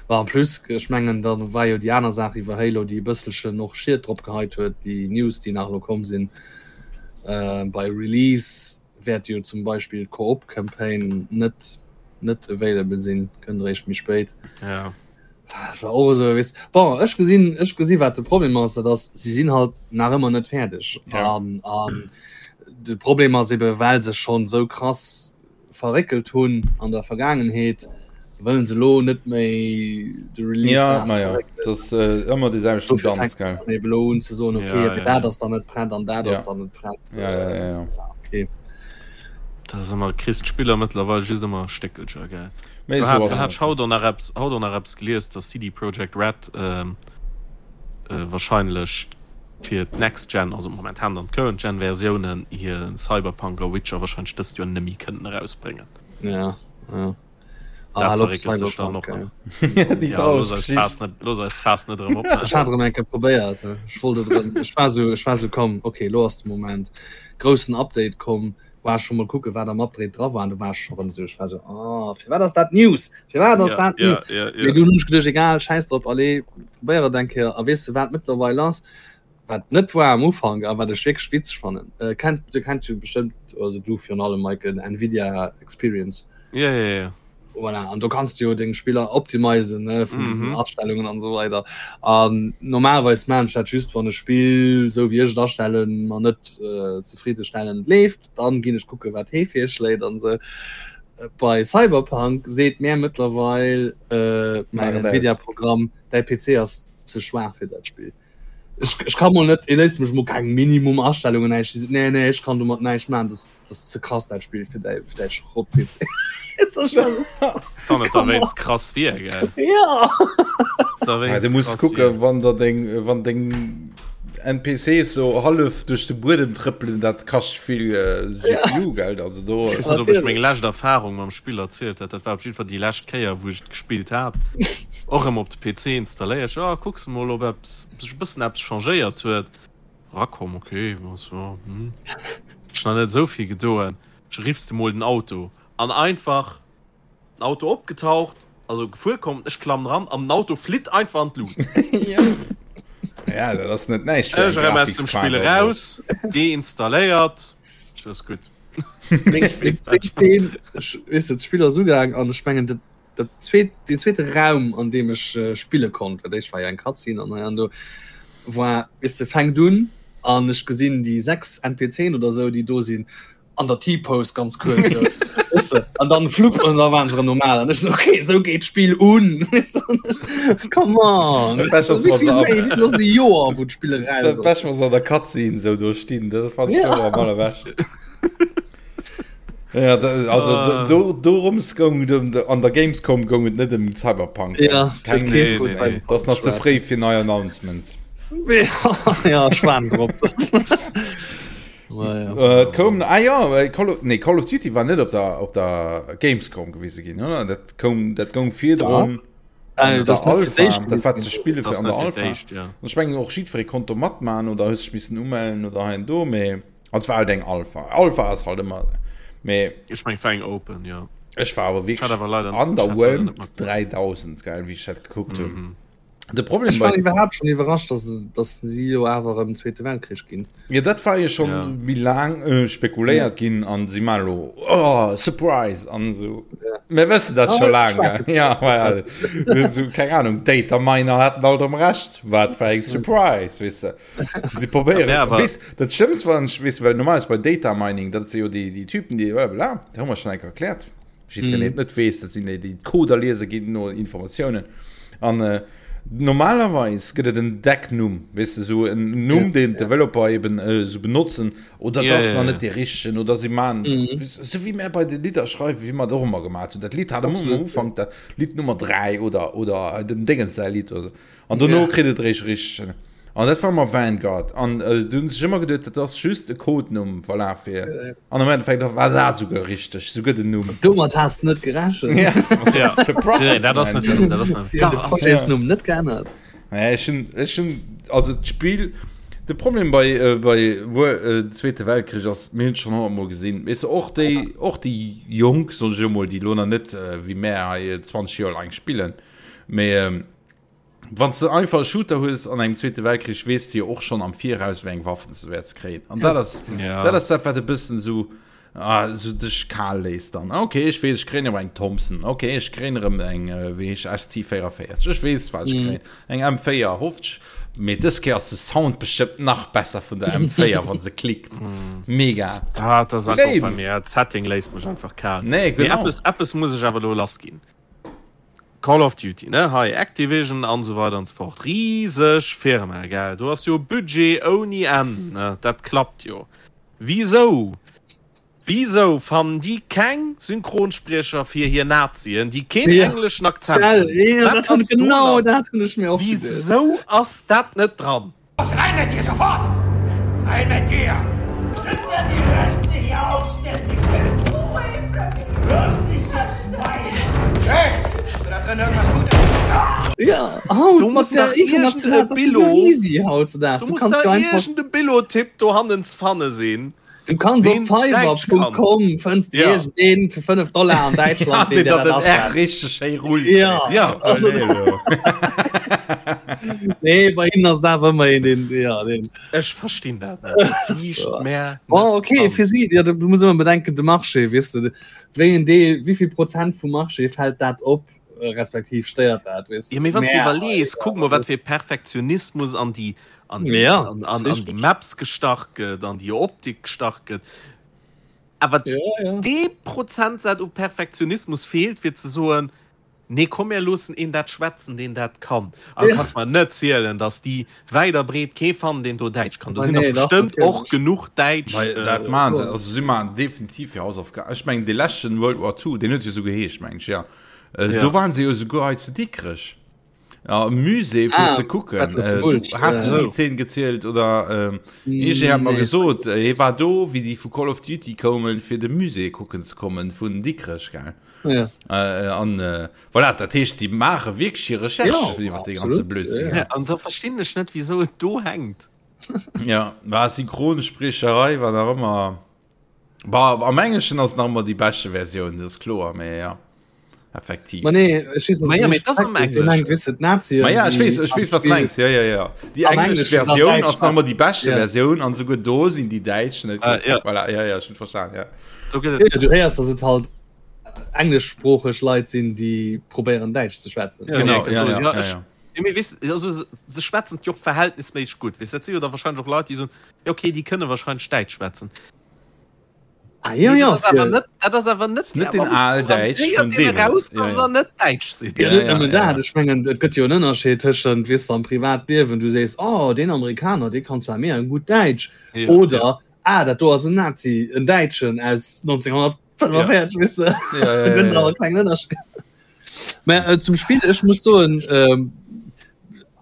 Bah, en plus, ech mengen, da war jo déi aner Saach iwwer Halo, déi e bësselchen och Schied drop geheit huet, déi News, déi nach elo komm sinn. Bei Release wäert jo zum Beispill d'Koop-Campaign net, net available sinn, kënnt eréischt méi spéit. Ja. Dat war och esou, weess. Bon, ech gesinn, ech gesi wat de Problem ass, dat ass, si sinn halt nach ëmmer net fäerdeg. Ja. An, an de Problem ass ebe well se schonn esou krass verréckelt hunn an der Vergaangenheet, wëllen se elo net méi de Release Ja, nach naja, verréckelen. dat ass äh, ëmmer dee selwechten Dofir Danz, fänkt gell? se dann eben elo un ze soen, okay, Ja, mee ja, dat ja. ass dann net prett an dat Ja. ass dann net prett. Ja, ja, ja, ja. Ja, okay. Dat ass ëmmer, kriss d'Spiller mëttlerweil just ëmmer Stéckelcher, gell? Mee Do esou hat, ass do et hat ech haut och nach eppes, haut och nach eppes gelies, dass CD Projekt Red ähm, äh, wahrscheinlech fir d'Next Gen, also momentan dann d'Current Gen Versiounen, hir Cyberpunk a Witcher wahrscheinlech dëst Joer nëmmi kënnen erausbréngen. Ja, ja. Dat Ah, op verréckelt sech dann Cyberpunk, och nach. ey. Déi Ja, traureg looss eis d'Faass Geschicht. net, looss eis d'Faass net erëm Ech opmaachen. hat erëm eng Kéier probéiert, ech wollt et erëm, ech war sou, ech war sou, komm, okay, elo ass de Moment, groussen Update komm, war ech scho mol kucke wat am Update dra war an du war ech scho rëm sou, ech war sou, ah, firwat ass dat News, firwat ass Ja, dat ja, News? ja, Mee ja. dunn hunn ech geduecht, egal, schäiss drop, allez, probéier et eng Kéier a weess de wat mëttlerweil ass, wat net war am Ufank a wat ech wierklech witzeg fannen, äh, kennt, du kennt jo bestëmmt, also du virun allem Michael, den Nvidia Experience. Ja, ja, ja. Voilà, an do kanns du jo deng Spiller optimisen, ne, vun den Mhm. Astellungen an esou weider. An normalerweis maan ech dat just, wann e Spill, esou wéi ech et astellen, mer net äh, zefriddestellend leeft, dann ginn ech kucke wat hee virschléit an esou. Bei Cyberpunk seet mär mëttlerweil äh, Maach mäin et aus. Nvidia-Programm, däi PC ass ze schwaach fir dat Spill. Ech, ech kann mol net, e léisst mech mol keng Minimum Astellungen näischt. Déi seet, nee, nee, ech kann domat näischt maachen, dat dat ass ze krass dat Spill fir däi fir däi Schrott-PC. Wann et derwéinst krass wier, gell? Ja. Ja, du muss kucken, wann der deng, wann deng NPCs so hallef duerch de Buedem trëppelen, dat kascht vill äh, GPU, ja. gell? Also do. Ech weess net, ob ech meng lescht Erfarung mam Spill erzielt hat. Dat war op jiddwer Fall déi lescht Kéier, wou ech et gespillt hat. Och erëm op de PC installéiert. Ech, ah, kucks mol, ob eppes, ob sech e bëssen eppes changéiert huet. Rakomm, okay, was, ja, hm. Ech nach net esou vill gedoen. Ech riffs de mol den Auto an einfach. Den Auto opgetaucht, also gefuer komm, ech klammen ran an den Auto flitt einfach an d'Luucht. Ja, dat ass net näischt fir eng Ech erëm aus dem Spill eraus, deinstalléiert, Schluss gutt. Meng zweet Zeen, ech weess net, d'Spill ass ugaang an ech mengen dat dat zweet, deen zweete Raum an deem ech spille konnt, well d'éischt war jo eng Cutscene an hei an do, war, weess de, fänkt un an ech gesinn déi 6 NPCen oder esou déi do sinn an der T-Pose ganz kuerz so. Weißt du? An dann flupp an da waren se normal an ech so, okay, so geht Spiel un Weißt du? An ech, Come on Dat Bescht ass, wann se ab- Los e Joer wou d'Spill Dat raus ass. Bescht, wann se an der Cutscene sou do stinn, dat fand ich Ja. am allerbeschten. Ja, da, also Ah. do, dorums goung et ëm, an der Gamescom goung et net ëm Cyberpunk. Ja, Keng, nee, nee, nee. dat ass nach ze fréi fir nei Announcements. Ja, Schwan drop. Äh, et koum, ah ja, äh, Call of, nee, Call of Duty war net op der, op der Gamescom gewise ginn, oder? Dat koum, dat goung virdrun. Äh, an das der net fir Alpha, d'éischt dat war ze spille Das fir an der net fir Alpha. d'éischt, ja. An ech mengen och jiddweree konnt do matmachen oder hues dech missen umellen oder hei an do, mee also et war halt eng Alpha. Alpha ass halt ëmmer, mee Ech meng, war eng Open, ja. ech war awer Ech hat wierklech awer leider- ech hat leider net underwhelmed matgemaach. 3000, gell, wéi ech dat gekuckt hunn. Mhm. De Problem Ech war bei iwwerhaapt schon iwwerrascht, dass, dass si jo awer ëm Zweete Weltkrich ginn. Ja, dat war jo schon Ja. méi laang äh, spekuléiert ginn an si man lo oh, Surprise an so. Ja. Mir wëssen dat Ah, schon laang. ich weiß gell? Ja, ma ja, so, keine Ahnung, Data Miner hatten alt am Recht. Wat fir eng Surprise, weess de. Si probéieren. Ja, aber- Weess, dat Schlimmst war, weess, well normalerweis bei Data Mining, dat si jo déi, déi Typen, déi bla bla, dat hu mer schon eng Kéier erkläert. Jiddwereen, deen et net weess, dat sinn déi, déi d'Coder liese ginn no Informatiounen. An äh, normalerweis gëtt et en Decknumm, weess de, sou en Numm, deen d'Developer eben äh, sou benotzen, oder Ja, dat ass ja, nach ja. net dee richtegen, oder si maachen, Mhm. sou wéi mär bei de Lidder schreiwen, wéi mer et och ëmmer gemaach hunn. Dat Lidd hat ëmmer am Absolut, Ufank dat Lidd Nummer 3 oder, oder dem Déngens säi Lidd oder sou. An dono Ja. kritt et eréischt richtegen. An dat war ëmmer Vanguard. An äh, du hunn sech ëmmer geduet, dat ass just e Codenumm, voilà, fir. An am Endeffekt war dat souguer richteg, souguer den Numm. Domat has de net gerechent. Ja, Ja. Surprise! Nee, dat ass man. net, dat ass net. Si hunn de Da ass Projetsnumm net geännert. Naja, ech hunn, ech hunn, also d'Spill, de Problem bei, äh, bei Wor- äh, Zweete Weltkrich ass, mir hunn et schonn honnertmol gesinn, weess de, och déi, och déi Jonk, soen ech elo mol, déi elo nach net äh, wéi mär hei äh, 20 Joer laang spillen, mee ähm, Wann s de einfach e Shooter hues an engem Zweete Weltkrich, weess de jo och schonn am Viraus, wéi eng Waffen s de wäerts kréien. An dat ass, Ja. dat ass dat, wat e bëssen esou, ah, esou dech kal léisst dann. Okay, ech weess, ech kréien erëm eng Thompson. Okay, ech kréien erëm eng, wéi heescht, ST44. Ech weess, wat ech kréien. Eng M4, hoffentlich. Mee dës Kéier ass de Sound bestëmmt nach besser vun der M4, wann se klickt. Mega. Ah, dat ass einfach Lame. bei mir. D'Setting léisst mech einfach kal. Nee, Mee genau. eppes, eppes muss ech awer elo lassginn. Call of Duty, ne, hei Activision an esou weider an esou fort, riseg Firma, gell, do ass jo Budget ouni Enn, ne, dat klappt jo. Wisou, wisou fannen déi keng Synchronspriecher fir hir Nazien, déi keen Ja. engleschen Akzent Gell, hunn? ja, Wat dat hunn, ass do genau lass? dat hunn ech mir och geduecht. Wisou ass dat net dran? Los, rein mit dir, sofort! Rein mit dir! Sind wir die Reste hier aufständig sind? Hörst mich jetzt nein! Hey, hast du da drin irgendwas Gutes? Ja, haut Du mat muss der dach irgende international, das ist so Billo- easy hautzudags. Du Du muss kannst da jo einfach, iergende Billo-Tipp dohannen ze fanne sinn. du kannst op deen Däitsch kann. fiverr.com fënns du Ja. iergendeen fir 5 Dollar an Däitschland, deen deen dir dat dat den R aschreift. richteg schéi rullt. Ja, Ja. also, Nee, elo. nee, bei hinnen ass et awer ëmmer een, deen, ja, deen. Ech verstinn dat net. Liicht mär Bon, net okay, an. fir si, ja, du muss ëmmer bedenken, de Marché, weess de, wéi en Deel, wéi vill Prozent vum Marché fält dat op, respektiv stéiert dat, weess de. Ja, mee wann s du Mä, iwwerlees, ja, kuck mol, wat das, fir Perfektionismus an déi, an déi, ja, an, das an, an déi richtig. Maps gestach gëtt, an déi Optik gestach gëtt. Awer Ja, ja. dee Prozentsaz u Perfektionismus feelt, fir ze soen,. Nee, komm mir loossen een dat schwätzen, deen dat kann. An du kanns mer net zielen, datt déi wäit a breet kee fannen, deen do Däitsch kann. Do sinn der bestëmmt och genuch Däitsch. Mä dat maachen se, also si maachen definitiv hir Hausaufgaben. Ech mengen, dee leschten World War II, deen huet jo esou geheescht, mengen ech, jo. Do waren se jo esouguer hei zu Dikrech am Musée fir ze kucken. Du, has du déi Zeen gezielt oder? Iergendee hat mer gesot, hie war do, wéi déi vu Call of Duty koumen, fir de Musée kucken ze kommen vun Dikrech, gell? Ja. Äh, an äh, voilà, dat heescht, sie maache wierklech hir Recherche ja, iwwer de ganze Blödsinn. Ja. Ja, an da verstinn ech net, wieso et do hänkt. Ja, war Synchronsprecherei war nach ëmmer. Bah, am Englischen ass nach ëmmer déi beschte Versioun, dat ass kloer, mee ja. Effektiv. Ma nee, ech weess, Ma ja, mee dat ass am Englischen. Weess, d'Nazien, Ma ja, ech weess, ech weess, was du mengs. Ja, ja, ja. Déi Am englesch Englischen dann Versioun Däitsch ass nach ëmmer déi beschte Ja. Versioun an souguer do sinn déi Däitsch net Ah, gutt. ja. Voilà, ja, ja, ech hunn verstan, ja. Do gëtt et Ja, du héiers, dass et halt englischsproocheg Leit sinn, déi probéieren Däitsch ze schwätzen. Ja, Genau, ja, ja, ja, ja, ja, ech, ja. ja, mee weess, also se, se schwätzen jo och verhältnisméisseg gutt. Weess, dat si jo da wahrscheinlech och Leit, déi soen, ja okay, déi kënne wahrscheinlech Däitsch schwätzen. Ah, ja, Mee ja, dat ass awer fir- net, dat ass awer net, Net den Aal-Däitsch vun deemools. raus, Ja, dass ja. der net Däitsch sidd. Ja, Ja, net ja, nëmmen ja, dat, ja. ech mengen, et gëtt jo en Ënnerscheed tëschent, weess de, am Privatliewen, du sees, oh, deen Amerikaner, dee kann zwar mega gutt Däitsch, Ja, oder, ja. ah, dat do ass en Nazi, en Däitschen aus 1945, weess de, Ja, ja, da gëtt ja, awer ja. e klengen Ënnerscheed. Mä äh, zum Spill, ech muss soen, ähm,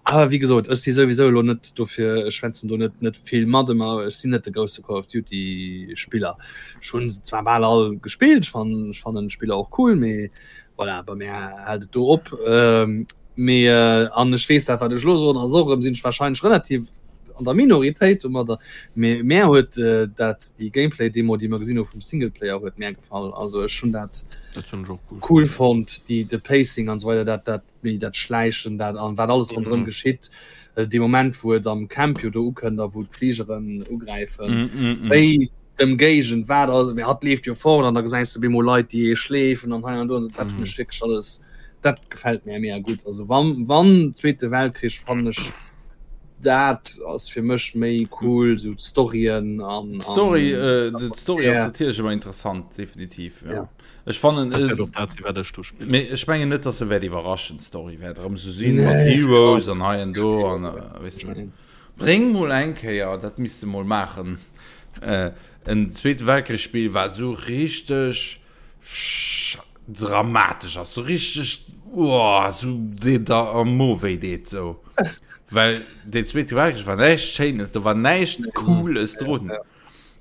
awer wéi gesot, ech si souwisou elo net dofir, ech schwätzen do net net vill mat ëmmer, ech sinn net de grousse Call of Duty Spiller. Ech hunn se zwar bal all gespillt, ech fannen ech fannen d'Spiller och cool, mee voilà, bei mär hält et do op. Ähm, mee äh, an ech weess dat wat ech elo soen ass och erëm, sinn ech wahrscheinlech relativ an der Minoritéit domadder, mee mär huet dat déi Gameplay Demo déi mer gesinn hu vum Singleplayer huet mär gefall. Also ech hunn dat Dat hunn ech och cool cool fonnt, déi de Pacing an esou weider, dat dat méi dat Schläichen dat an wat alles ronderëm Mhm. geschitt. Dee Moment wou et am Camp jo do ukënnt a wou d'Fligeren ugräifen, Mm, mm, mm. wéi d'Ëmgéigend wat all, mee hatt leeft jo fort an da gesäis de bemol Leit déi ee schleefen an hei an do an esou, dat hunn ech wierklech alles, dat gefält mär mega gutt. Also wann wann Zweete Weltkrich fannen ech Dat ass fir mech méi cool, sou d'Storyen an. D'Story, d'Story ass natierlech ëmmer interessant, definitiv, jo. Ech fannen. Dat wäert och dat sinn, wat ech do spillen. Mee ech mengen net, datt se wäert iwwerraschen, d'Story wäert erëm sou sinn mat Heroes an hei an do an, weess de. Bréng mol eng Kéier, dat misst de mol maachen, en Zweete Weltkrich-Spill, wat sou richteg dramatesch ass, sou richteg uah, sou dee der am Mo wéi deet sou. Well deen Zweete Weltkrich war näischt Schéines, do war näischt Cooles drun.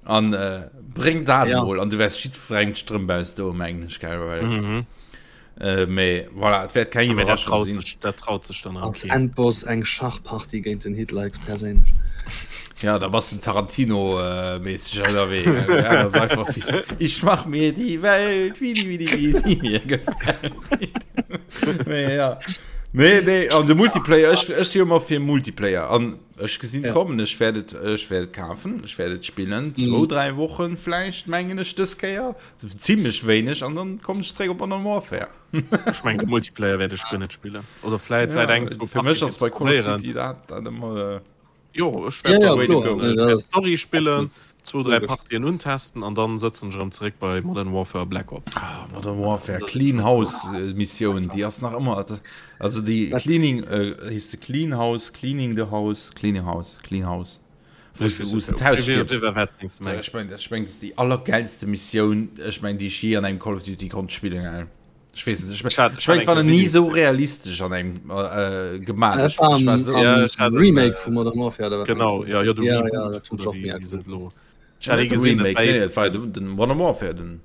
An äh, bréng dat Ja. mol an du wäers jiddwerengem d'Strëmp ausdoen, mengen ech, gell, well Mhm. äh, mee voilà, et wäert keng Mee dat Iwwerraschung traut sinn. sech, dat traut sech dann Als keen. Endboss eng Schachpartie géint den Hitler héchstperséinlech. Ja, da bass den Tarantino äh, mäßig ënnerwee. gell? Ja, das ist einfach fies. Ich mach mir die Welt, wie die, wie die, wie sie mir gefällt. Nee, ja. Nee, nee, an de Multiplayer, ech, ech si ëmmer fir Multiplayer. An ech gesinn Ja. kommen, ech wäert et, ech wäert et kafen, ech wäert et spillen. Zwou, dräi Wochen vläicht, mengen ech, dës Kéier. Zimmlech wéineg, an dann kommen ech zréck op Modern Warfare. Ech mengen, de Multiplayer wäert ech guer net spillen. Oder vläit, vläit eng, zwou Fir mech Partien ass bei Call of probéieren. Duty dat, dat ëmmer. Äh, Jo, ech Ja, wäert ja, dann Way to kloer. go. Nee, dat ass Story spillen, zwou, dräi logesch. Partien untesten an dann sëtzen ech erëm zeréck bei Modern Warfare Black Ops. Ah, Modern Warfare Clean House äh, Missioun, déi ass nach ëmmer also déi Cleaning äh, heescht se Clean House, Cleaning the House, Cleaning House, Clean House. Wou s wou s de d'Haus stierps. Ech meng, ech meng, dat ass déi allergeilste Missioun, ech meng, déi ech jee an engem Call of Duty konnt spillen, gell. Ech weess net, ech meng, Ech hat- ech meng, ech war hat nach eng ni Video- sou realistesch an engem äh, gemaach. Dat Ech, war ech war am, sou, am Ja, ech hat en, Remake äh, vu Modern Warfare oder wat Genau, ja, ja, de Ja, Reboot ja, dat hunn oder ech och wéi mega wéi se cool. et elo. Ech hat ee net de gesinn, dat Remake, war nee, ee- et war den, den Modern Warfare, den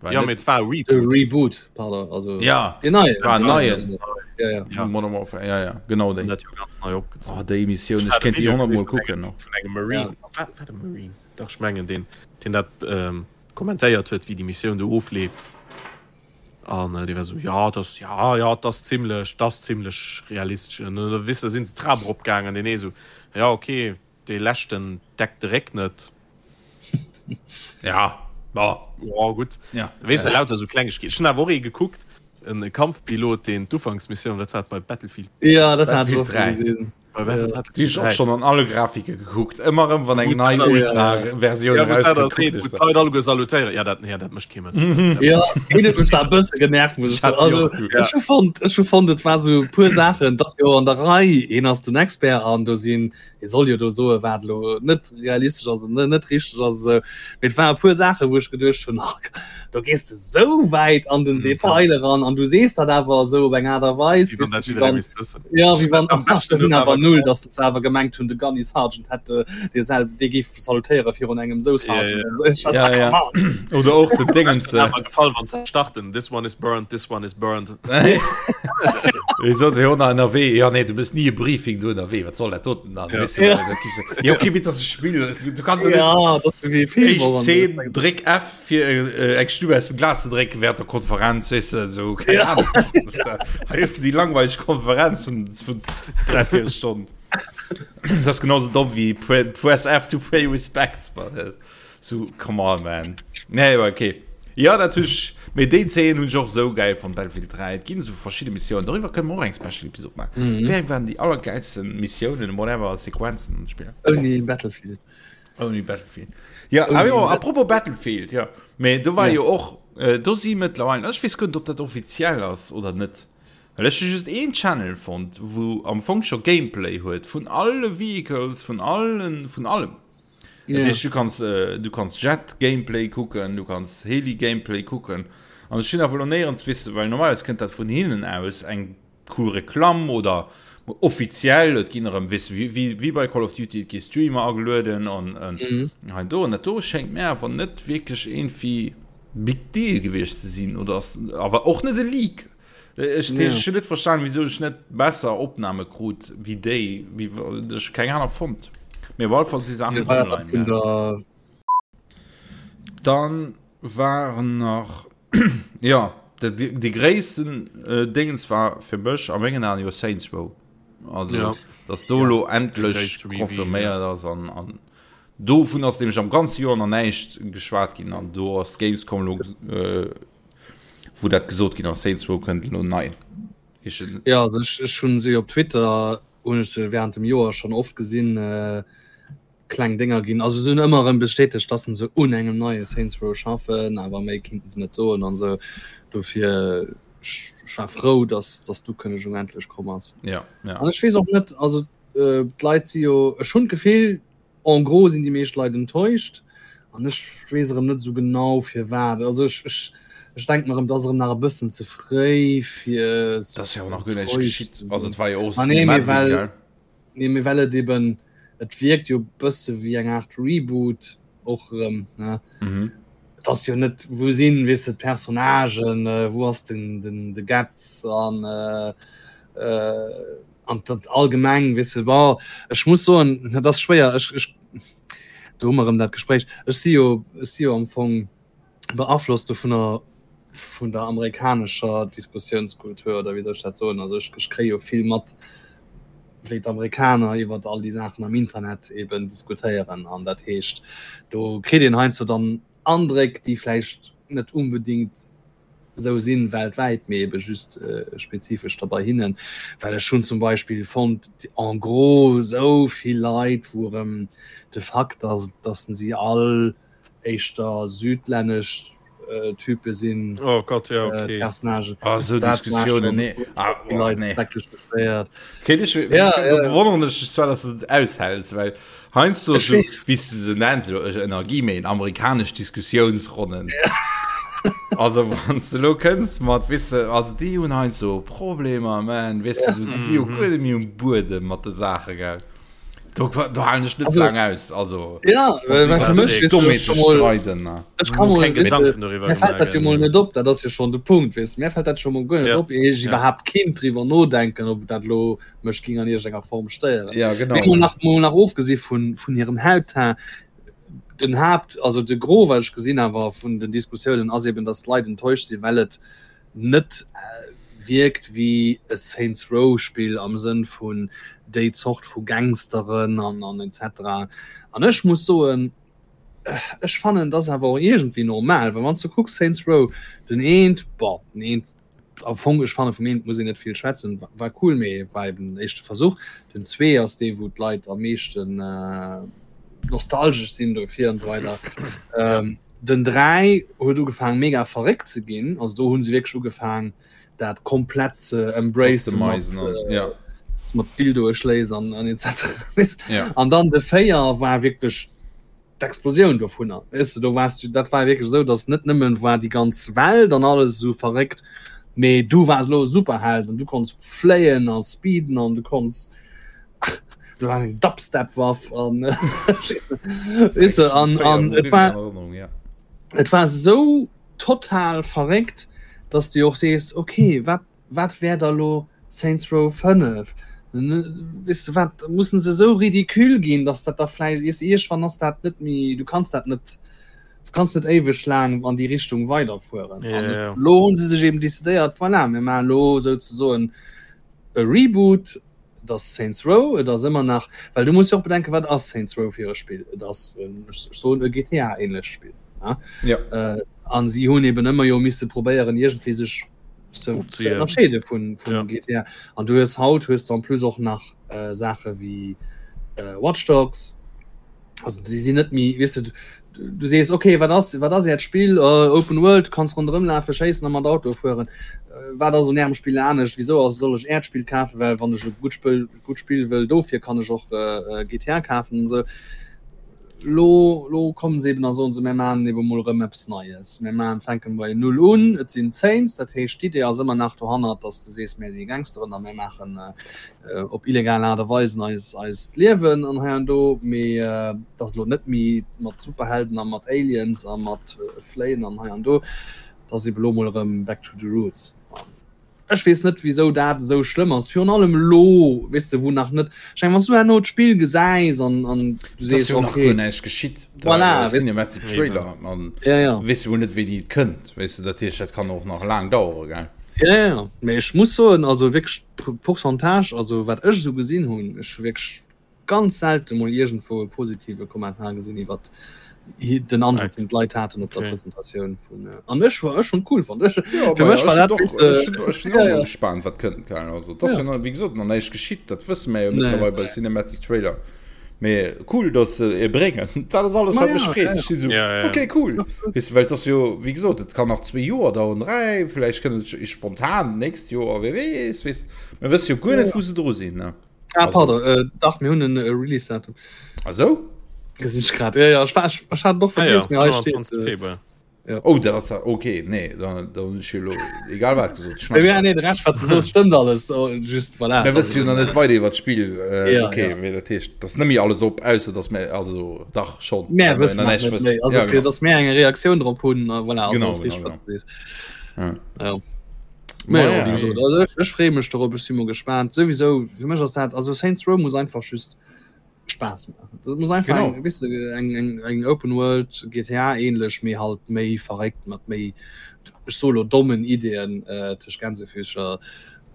war Ja, net mee et war e De Reboot. Reboot, pardon, also Ja, den neien. war en neien. Ja, ja. Ja. Modern Warfare, ja, ja, genau An déi. dat jo ganz nei opgezogen. Oh, déi Missioun, Ech ech hat e kéint déi Video 100 gesinn Mol vun engem kucken noch. vun engem Marine. War, war de Marine? Dach, ech mengen deen, deen dat ähm, kommentéiert huet, wéi déi Missioun do ofleeft. An äh, dee war sou, ja, das, ja, ja, das zimmlech, das zimmlech realistesch. An da weess de, sinn se d'Trap eropgaangen, deen ee sou, ja, okay, dee leschten deckt de Réck net. Ja, bon. Ja, gutt. Ja. Weess de, lauter sou Klengegkeeten. Ech hunn awer och ee gekuckt, en Kampfpilot, deen d'Ufanksmissioun, dat war bei Battlefield Ja, dat hat ech Battlefield och 3. gesinn. Déi ech och schonn an alle Grafike gekuckt. Ëmmer erëm wann eng nei Ultra-Versioun erauskënnt. Wou d'Leit alleguer salutéieren. Ja, dat, nee, dat mécht kee Mënsch. Ja, een huet mech zwar e bësse genervt, muss ech soen. Also, ech hu fonnt, ech hu fonnt, et war sou e puer Saachen, et ass jo an der Rei, hien ass den Expert an do sinn, hie soll jo do soen, wat elo net realistesch ass an net richteg ass esou. Mee et war e puer Saachen, wou ech geduecht hunn, ach, do gees de sou wäit an den Detail eran an du sees dat awer esou op eng Aart a Weis, Wéi wann dat jidderee misst wëssen. Ja, wéi wann am beschte sinn awer null, datt se awer gemengt hunn, de Gunny Sergeant hätt dee selw, dee géif salutéiere virun engem sou Sergeant. Ja, ja, ja. Oder och den Dingens. Awer gefall, wann se starten, this one is burned, this one is burned. Wéi sot jo nach ënnerwee, ja nee, du bist nie e Briefing du ënnerwee, wat soll dat doten dann? Ja. Weißt du, ja. Dat gibst du, ja, okay, bitte, das ist Spiel, du kannst ja, ja das ist wie Film, Éischt Szene, dréck F fir äh, eng Stube aus dem Glas ze drécken während der Konferenz, weißt du, so, keine ja. Ahnung. Hei ist die langweilig Konferenz von, von drei, vier Stunden. Das ist genauso dumm wie Press F to pay respects, but, So, come on, man. Nee, aber okay. Ja, dat hunn ech, mee déi Zeen hunn ech och esou gäil fonnt, Battlefield 3. Et ginn esou verschidde Missiounen, doriwwer kënne mer och eng Special Episode maachen. Mm. Wéi eng waren déi allergäilsten Missiounen, whatever, Sequenzen an Spiller? Ouni Battlefield. Ouni Battlefield. Ja, awer jo, apropos Battlefield, ja. Mee do war ja. jo och, äh, do si mëttlerweil, ech weess guer net, ob dat offiziell ass oder net. Well ech hu just een Channel fonnt, wou am Fong scho Gameplay huet vun alle Vehicles, vun allen, vun allem. Ja. Heescht, du kanns, äh, du kanns Jet Gameplay kucken, du kanns Heli Gameplay kucken. An ech hunn awer lo néierens wisse, well normalerweis kënnt dat vun hinnen aus eng cool Reklamm oder offiziell, et ginn erëm wisse wéi, wéi, wéi bei Call of Duty, et gi Streamer agelueden an, an mhm. hei do. An dat do schéngt mir awer net wierklech irgendwie Big Deal gewiescht ze sinn oder ass awer och net e Leak. Ech ja. ech net verstan wieso ech net besser Opnahme krut wie déi wie ech keng aner fond. Mir op alle Fall si Sachen ja, online, ja. Der... Dann waren nach ja de, de gréissten äh, Dingens war fir mech a mengen Aen jo Saints Row. Also ja. dass do lo ja. endlech konfirméiert ass an, an dovun ass nämlich am ganze Joer nach näischt geschwat ginn an do ass Gamescom lo äh, wou dat gesot ginn ass, Saints Row kënnt elo nei. Ja, also ech, ech hunn se op Twitter hunn ech se während dem Joer schon oft gesinn, äh, kleng Dénger ginn. Also se hunn ëmmer erëm bestätegt, dass se un engem neie Saints Row schaffen, awer méi kinnten se net soen an esou. Dofir ech, ech war frou, dass, dass d'Ukënnegung endlech komm ass. Ja, ja. An ech weess och net, also äh, d'Leit si jo, ech hunn d'Gefill, En gros sinn déi meescht Leit enttäuscht an ech weess erëm net esou genau firwat. Also ech, ech, ech denken erëm, et ass erëm nach e bëssen ze fréi fir Dat ass jo och nach guer näischt geschitt. Also et war jo och Ah nee, mee Cinematic, well, gell? nee, mee well et eben, et wierkt jo e bësse wéi eng Aart Reboot och erëm, ne? Mhm. Et ass jo net, wou sinn, weess de, d'Personnagen, wou ass den, den, de Getz an An dat allgemeng, weess de, bon, ech muss soen, dat ass schwéier, ech, ech, do hu mer erëm dat Gespréich, ech si jo, ech si jo am Fong beaflosst dovunner, vun der amerikanescher Diskussiounskultur, oder wéi soll ech dat soen, also ech, ech kréie jo vill mat, wéi d'Amerikaner iwwer all déi Saachen am Internet eben diskutéieren. An dat heescht, do kritt een heiansdo dann Andréck, déi vläicht net unbedingt esou sinn weltwäit, mee ebe just spezifesch da bei hinnen, well ech hunn zum Beispill fonnt en gros esou vill Leit, wou erëm de Fakt ass, dass si all éischter südlännesch Type sinn, Oh Gott, ja, okay. Personnagen. Ah, esou Dat war Diskussiounen, schon nee. Ah, vill oh, Leit nee. schrecklech beschwéiert. Okay, ich, Ja, da ja. bewonneren ech dech zwar, dass du dat aushälts, well heiansdo Ech so, weess. wéi s du se nenns, jo, Energie, méi amerikanesch Diskussiounsronnen. Also wann s de lo kënns mat, weess de, also déi hunn heiansdo Problemer, man, weess de, so, déi si jo guer net méi um Buedem mat de Saache, gell. Do, do halen ech net Also- laang aus, also. Ja, well well fir mech, weess du, Dommheete schon mol, streiden, ne. ech kann mol, Keng weess du, Gedanken doriwwer Mir fällt dat jo gemaach, mol net op, dat ass jo schon de Punkt, weess du. Mir fällt dat schon mol guer net Ja. op, ier ech Ja. iwwerhaapt kinnt driwwer nodenken, ob dat lo mech ging an iergendenger Form stéieren. Ja, genau. Mee mol nach, mol nach ofgesi vun, vun hirem Hautteint, den Haapt, also de Gros, wat ech gesinn awer vun den Diskussiounen, ass eben, dass d'Leit enttäuscht sinn, well et net wierkt wéi e Saints Row Spill am Sënn vun déi Zort vu Gangsteren an, an etc. An ech muss soen, ech fannen, dat ass awer och iergendwéi normal, well wann s du kucks Saints Row, den eent, bon, den eent. Am Fong, ech fanne vum eent muss een net vill schwätzen, war cool, mee war eben den éischte Versuch. Den 2 ass dee wou d'Leit am meeschten nostalgesch sinn dofir an esou weider. Den 3 huet ugefaang mega verréckt ze ginn, also do hu se wierklech ugefaang dat komplett ze embracen mat, ja. mat Dildoe schléiss an an etc. Ja. An dann de 4 war wierklech d'Explosioun dovunner weess de, do waars du, dat war wierklech esou, datt net nëmmen war déi ganz Welt an alles esou verréckt, mee du waars elo e Superheld an du konns fléien a speeden an du konns, du haas eng Dubstep-Waff an weess de, an an et war et war esou total verréckt, datt s de och sees, okay, wat Wat wär da lo Saints Row 5? Weess de wat, mussen se esou ridicule ginn, dass dat da vläicht, weess de, iergendwann ass dat net méi, du kanns dat net, du kanns net éiweg laang an déi Richtung weiderfueren. Ja, An ja. elo hu se sech eben decidéiert, voilà, mir maachen elo souzesoen e Reboot, et ass Saints Row, et ass ëmmer nach, well du muss jo och bedenken, wat ass Saints Row fir e Spill? Et ass, ech soen, e GTA-ähnlecht Spill, ja. Ja. An si hunn eben ëmmer jo misse probéieren, iergendwéi sech ze ënnerscheede vun vun ja. GTA. An du hues haut hues du en plus och nach äh, Sache wie äh, Watch Dogs. Also sie sinn net méi weißt du, du, du sees okay, wat ass wat ass Äert Spill äh, Open World, kanns ronderëm lafe, schéissen a mat Auto fueren. Äh, wat ass un Ärem Spill anescht? Wieso ass soll ech Äert Spill kafen, well wann ech e gutt Spill gutt Spill wëll dofir kann ech och äh, GTA kafen und so. Lo, lo kommen se eben a soen se, mir maachen ebe mol erëm eppes Neies. Mir maachen, fänken bei Null un. Et sinn d'Saints, dat heescht, d'Idee ass ëmmer nach dohannert, datt s de sees, mir si Gangsteren a mir maachen op illegal Aart a Weisen eis, eist Liewen an hei an do. Mee et ass elo net méi mat Superhelden a mat Aliens a mat Fléien an hei an do. Et ass ebe lo mol erëm back to the roots. Ech weess net wisou dat esou schlëmm ass, virun allem elo, weess de, wou nach net, ech mengen, wann s du herno d'Spill gesäis an an du sees, okay, nach guer näischt geschitt, voilà, Cinematic Trailer an ja, ja. weess jo net wéini et kënnt, weess de, dat heescht dat kann och nach laang dauere, gell? Ja, ja, mee ech muss soen, also wierklech d'Pourcentage, also wat ech esou gesinn hunn, ech hu wierklech ganz selte mol iergendwou e positive Kommentar gesinn iwwer den Androck den d'Leit haten op der okay. Presentatioun vun äh, an ech war ech schon cool fand ech ja, fir mech war dat doch, äh, ech, ech ja, ja. gespannt wat kënnt kann also das ja. ja wie gesagt noch näischt geschitt dat wësse mir jo nee. mittlerweile bei Cinematic Trailer mee cool dass se e bréngen dat ass alles wat ja, mech freet ja, ja. so, ja, ja. okay cool weißt du, well das jo wie gesagt et kann nach zwee Joer dauern dräi vielleicht kënnt et spontan nächst Joer wer weess weess mir wësse jo guer net wou se dru sinn ne Ah, pardon, äh, dach, mir hunn en äh, Release-Datum. Ah, so? Gesinn ech grad. Ja, ja, ech, war, ech, ech hat och Ah, ja, vergiess, mee hei steet. 25. Äh, Februar. ja. Oh, dat ass ja, okay, nee, dann, dann hunn ech jo elo egal wat gesot. Ja, ja, nee, de Rescht, wat du soos, stëmmt alles. Oh, just, voilà. Mir wësse jo nach net weider iwwer d'Spill. Äh, Ja, okay, ja. mee dat heescht, dat ass net méi alles op, ausser dass mir, also dach schon. Mär well mir wëssen nach nach näischt net wëssen. méi. Also, Ja, fir genau. dass mär eng Reaktioun drop hunn, äh, voilà, also Genau, ass genau, richteg, wat genau. du sees. Ja. Ja. Ma Mä ja, ja, wéi gesot, also ech, ech freeë mech dorop, ech si mol gespaant. Souwisou, fir mech ass dat, also Saints Row muss einfach just Spaass maachen. Dat muss einfach Genau. eng, weess de, eng, eng, eng Open World GTA ähnlech, mee halt méi verréckt mat méi, ech soe lo dommen Ideeën äh, tëscht Gänsefüßcher,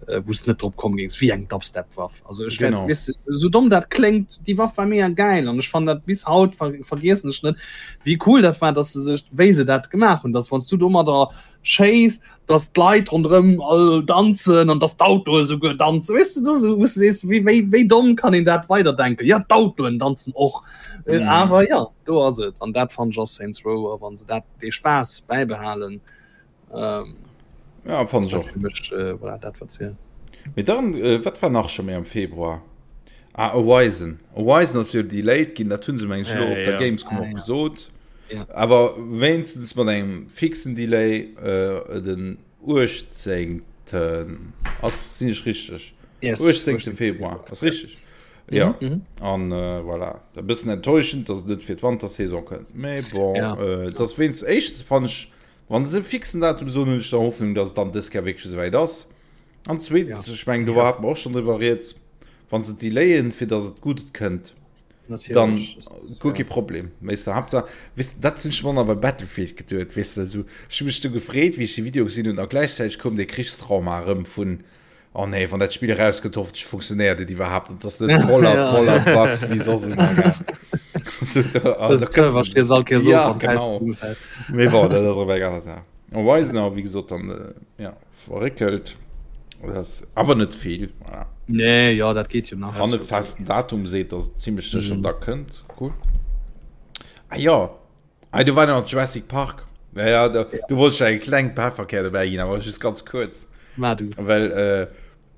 äh, wou s de net drop komm géings, wéi eng Dubstep-Waff. Also ech Genau. wär, weess de, sou domm dat kléngt, déi Waff war mega gäil an ech fannen dat bis haut ver vergiessen ech net, wéi cool dat war, dass se sech, wéi se dat gemaach hunn, dass wann s du domadder schéiss, dass d'Leit ronderëm all danzen an dass d'Autoe souguer danzen. Weess du, das, wou du sees, wéi, wéi, wéi domm kann een dat weiderdenken? Ja, d'Autoen danzen och. Äh, Mhm. Awer ja, do ass et. An dat fannen ech ass Saints Row. A wann se dat, dee Spaass bäibehalen, ähm, Ja, fand ass ech dat och. fir mech, äh, voilà, dat wat zielt. Mee dann, äh, wat war nach scho méi am Februar? Ah, Horizon. Horizon ass jo delayed ginn, dat hunn se meng ech elo Äh, op der ja. Gamescom Ah, och ja. gesot. Ja. Awer wéinstens mat engem fixen Delay, äh, den 18. Ass, sinn ech richteg? Yes, 18. 18. Februar, ass richteg? Ja. Mhm, mhm. An äh, voilà. E bëssen enttäuschend, dass et net fir d'Wantersaison kënnt. Mee bon, Ja. äh, dass wéinst éischtens fannen ech, wann se e fixen Datum soen, hunn ech da Hoffnung, dass et dann dës Kéier wierklech esouwäit ass. An zweetens, Ja. ech mengen, do hate mer och schonn driwwer rieds, wann se delayen, fir dass et gutt kënnt, dann Natierlech. guer kee Problem. Weess de, Haaptsaach, weess de, dat hunn ech mer nach bei Battlefield geduet, weess de, esou, ech hu mech du gefreet, wéi ech de Video gesinn hunn, a gläichzäiteg koum dee Krichstrauma erëm vun, oh nee, wann dat Spill erauskënnt, hoffentlech funktionéiert et iwwerhaapt an et ass net voller, Ja. voller Bugs wéi soss ëmmer, gell. So, da, Das da Server kënns steet all Keer so Ja, wann d'Häis genau. zesummefält. Mee bon, dat ass och eng aner Saach. Horizon awer wéi gesot dann äh, ja, verréckelt. Dat ass awer net vill. Voilà. Nee, ja, dat geet jo nach. Wann e festen Datum seet, dass et zimmlech sécher mhm. da kënnt. Cool. Ah ja, ah, du war nach Jurassic Park. Ja, ja, da, du wolltest eng kleng Pefferkär dobäi ginn, awer just ganz kurz. Ma du. Well äh,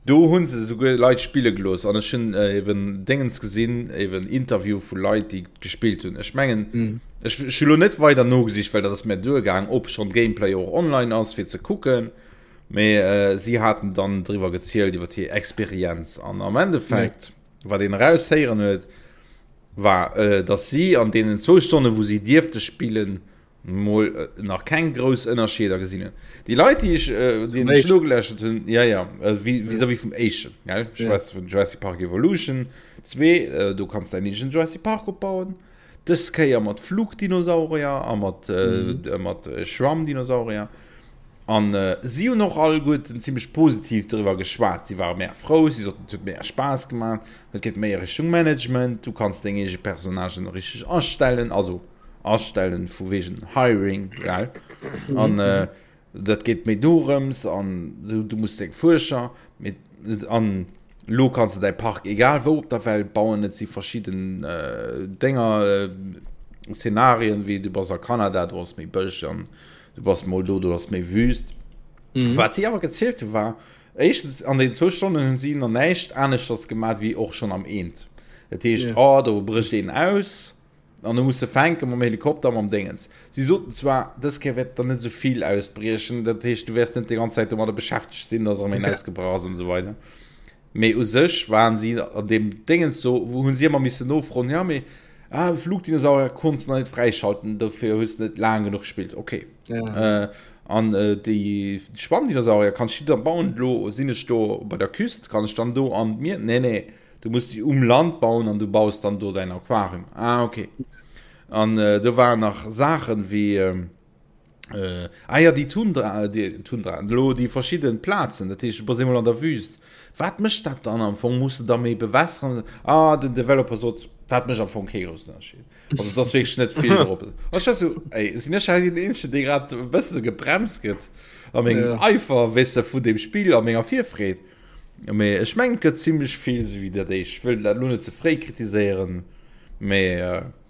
Do hu se esouguer Leit spille gelooss an ech hunn eben Déngens gesinn, eben Interview vu Leit, déi gespillt hunn. Ech mengen, ech hu lo net weider nogesicht, well dat ass mär duergaang, ob schonn Gameplay och online ass fir ze kucken, mee si haten dann driwwer gezielt iwwer hir Experienz an am Endeffekt, wat een eraushéieren huet, war, datt si an deenen zwou Stonne wou si dierfte spillen, mol nach keng grouss Ënnerscheeder gesinn hunn. Déi Leit, déi ech, äh, déi ech nogeläschert hunn, ja, ja, äh, vis-à-vis vum éischten, gell? Ech schwätze vun Jurassic Park Evolution 2, äh, do kanns däin eegenen Jurassic Park opbauen. Dës Kéier mat Flugdinosaurier a mat, äh, mm. mat äh, Schwammdinosaurier. An äh, si hunn och alleguerten zimmlech positiv doriwwer geschwat. Si ware mega frou, si soten, et huet mega Spaass gemaach, et geet méi a Richtung Management, du kanns deng eege Personnagen richteg astellen, also astellen vu wegen Hiring gell an mhm. äh, dat geht méi dorëms an du, du musst deng Fuerscher mit an lo kannst du dein Park egal wou op der Welt bauen et si verschieden äh, Dinger äh, Szenarien wie du bass a Kanada du hast méi Bësch an du bass mol do du hast méi Wüst mhm. wat si awer gezielt hu war éischtens an den zwou Stonnen hunn si nach näischt aneschters gemaat wéi och schon am eent dat heescht yeah. oh, do brécht een aus An du muss se fänke mam Helikopter, mam Déngens. Si soten zwar, dës Kéier wäert der net esou vill ausbriechen, dat heescht, du wäers net déi ganz Zäit domadder beschäftegt sinn, dass erëm een ausgebrach ass an esou weider. Mee u sech waren si an deem Déngens do, wou hu si ëmmer missen nofroen, ja mee ah, Flugdinosaurier konns de nach net fräischalten, dofir hues de net laang genuch gespillt. Okay. Ja. Äh, an äh, déi Schwammdinosaurier kanns du da bauen, elo sinn ech do bei der Küst, kann ech dann do an d'Mier? Nee, nee. Du muss déi um Land bauen an du baus dann do däin Aquarium. Ah, okay. An äh, do waren nach Saachen wéi ähm, äh, ah ja, déi Tundra, déi Tundra, lo déi verschidden Plazen, dat heescht, du bass eemol an der Wüst. Wat mécht dat dann am Fong? Muss de da méi bewässeren? Ah, den Developer sot, dat mécht am Fong kee groussen Ënnerscheed. Also dat ass wierklech net vill drop. Ech war sou, ey, sinn ech hei den Eenzegen, dee grad e bësse gebremst gëtt a mengem ja. Eifer, weess de, vun deem Spill a menger Virfreed. Mee ech mengen et gëtt zimlech vill sou wéi dat éischt. Ech wëll dat lo net ze fréi kritiséieren, mee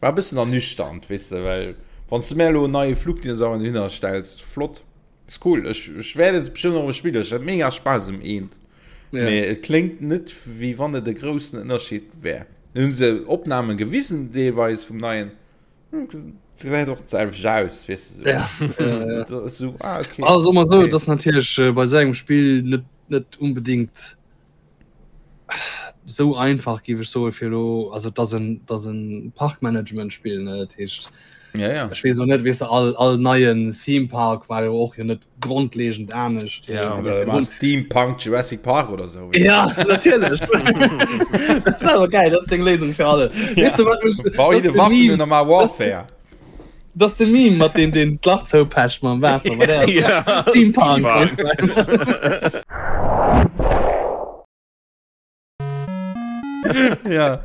war e bëssen ernüchternd, weess de, well wann s de mär elo en neie Flugdinosaurier dohinner stells, flott, ass cool, ech ech wäert et bestëmmt och erëm spillen, ech hat mega Spaass um eent, mee et kléngt net wéi wann et e groussen Ënnerscheed wär. Hunn se Opnamen gewisen deelweis vum neien. Gesäit och d'selwecht aus, weess de sou. Ja, ja, ja. So, so, ah, okay. Also mal so, Okay. das natierlech äh, bei sou engem Spill net net unbedingt sou einfach géif ech soe fir lo also dat ass en dat ass en Parkmanagement-Spill ne dat heescht Ja, ja. ech weess och net weess de all all neien Theme Park war jo och jo net grondlegend anescht. Ja, oder war Steampunk Jurassic Park oder so. Ja, natierlech. Dat ass awer geil, dat ass deng Léisung fir alle. Ja. Weess du, wat mech, Bau dat jede ass de Waffen Meme, und normal Warfare. dat ass de Meme mat deem deen d'Lach zoupecht mam Waasser. Mat der Ja, Steampunk, weess du. ja.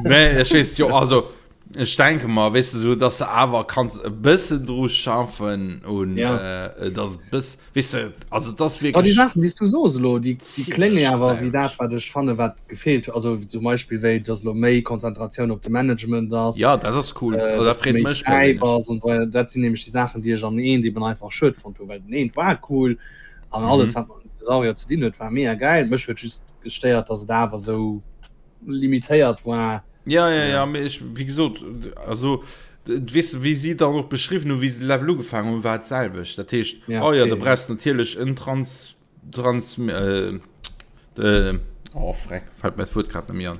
Nee, ech weess jo, also ech denke mal, weess du, so, dass du awer kanns e bëssen dru schaffen und Ja. äh, dass et bëss, weess du, also das Aber déi wirklich Saachen, déi s du soos elo, déi, déi Ziemlech klénge awer wéi dat, d'selwecht. wat ech fanne wat gefeelt huet. Also zum Beispill wéi, dass elo méi Konzentratioun op de Management ass, Ja, dat ass cool. äh, Also, dat dass du freet méi mech fräi perséinlech. bass und so weider. Dat sinn nämlech déi Saachen, déi ech am eent eben einfach schued fonnt hunn, well den eent war cool an alles, Mhm. wat mat Dinosaurier ze dinn huet, war mega geil. Mech huet just gestéiert, dass et awer sou limitéiert war. Ja, ja, ja, mee ech, wéi gesot, also, weess de, wéi si dann och beschriwwen hunn, wéi se de Level ugefaangen hunn, war et d'selwecht. Dat heescht, Ja, oh ja, okay, da ja. brauchs de natierlech en Trans, Trans, äh, äh, oh freck, fält mir d'Wuert grad net méi an.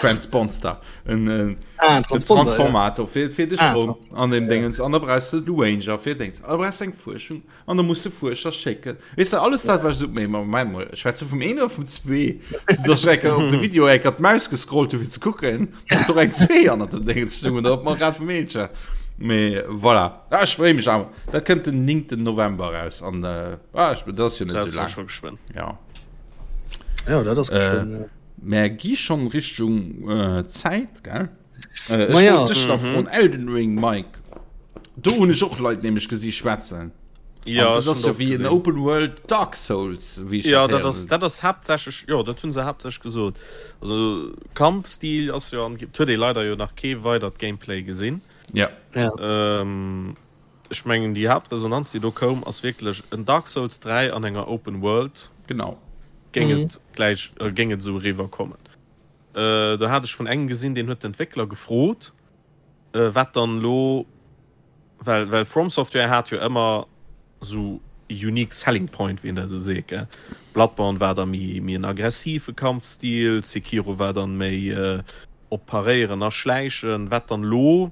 Transponster, en, en, Ah, en Transponder, ja. Transformator fir, fir de Ah, Stroum an dem ja. Dingens. An da brauchs de de Ranger fir Dings. An da brauchs de eng Fuerschung. An da muss de Fuerscher schécken. Weess de, alles dat, wat ech so, mee Moment mol, schwätzt du vum een oder vum zwee? So, dass ech enker op de Video enker d'Maus gescrollt hu fir ze kucken, ob do eng zwee annert dem Déngens stoung oder ob mer grad vum een schwätzen. Mee voilà. Ah, ech freeë mech awer. Dat kënnt den 9. November raus an äh, ah, ech, dat ass jo net Dat sou ass jo laang. scho geschwënn. Ja. Ja, dat ass Äh, geschwënn, ja. Mer gi schonn Richtung äh, Zäit, gell? Äh, ech Ma ja. wollt dech nach froen, Elden Ring, Mike. Do hunn ech och Leit nämlech gesi schwätzen. Ja, dat ass jo wéi en Open World Dark Souls, wéi ech Ja, dat ass, dat ass haaptsächlech, jo, dat hunn se haaptsächlech gesot. Also Kampfstil ass jo, et huet ee leider jo nach kee weidert Gameplay gesinn. Ja. Ja. Ähm, ech mengen déi Haaptresonanz, déi do koum, ass wierklech en Dark Souls 3 an enger Open World. Genau. Géing et gläich, géing et esou eriwwer kommen. Äh, do hat ech vun engem gesinn, deen huet d'Entwéckler gefrot, wat dann elo, well well From Software hat jo ëmmer esou e unique selling point, wéi een dat esou seet, gell. Bloodborne war da méi méi en aggressive Kampfstil, Sekiro war dann méi op Paréieren a Schläichen, wat dann elo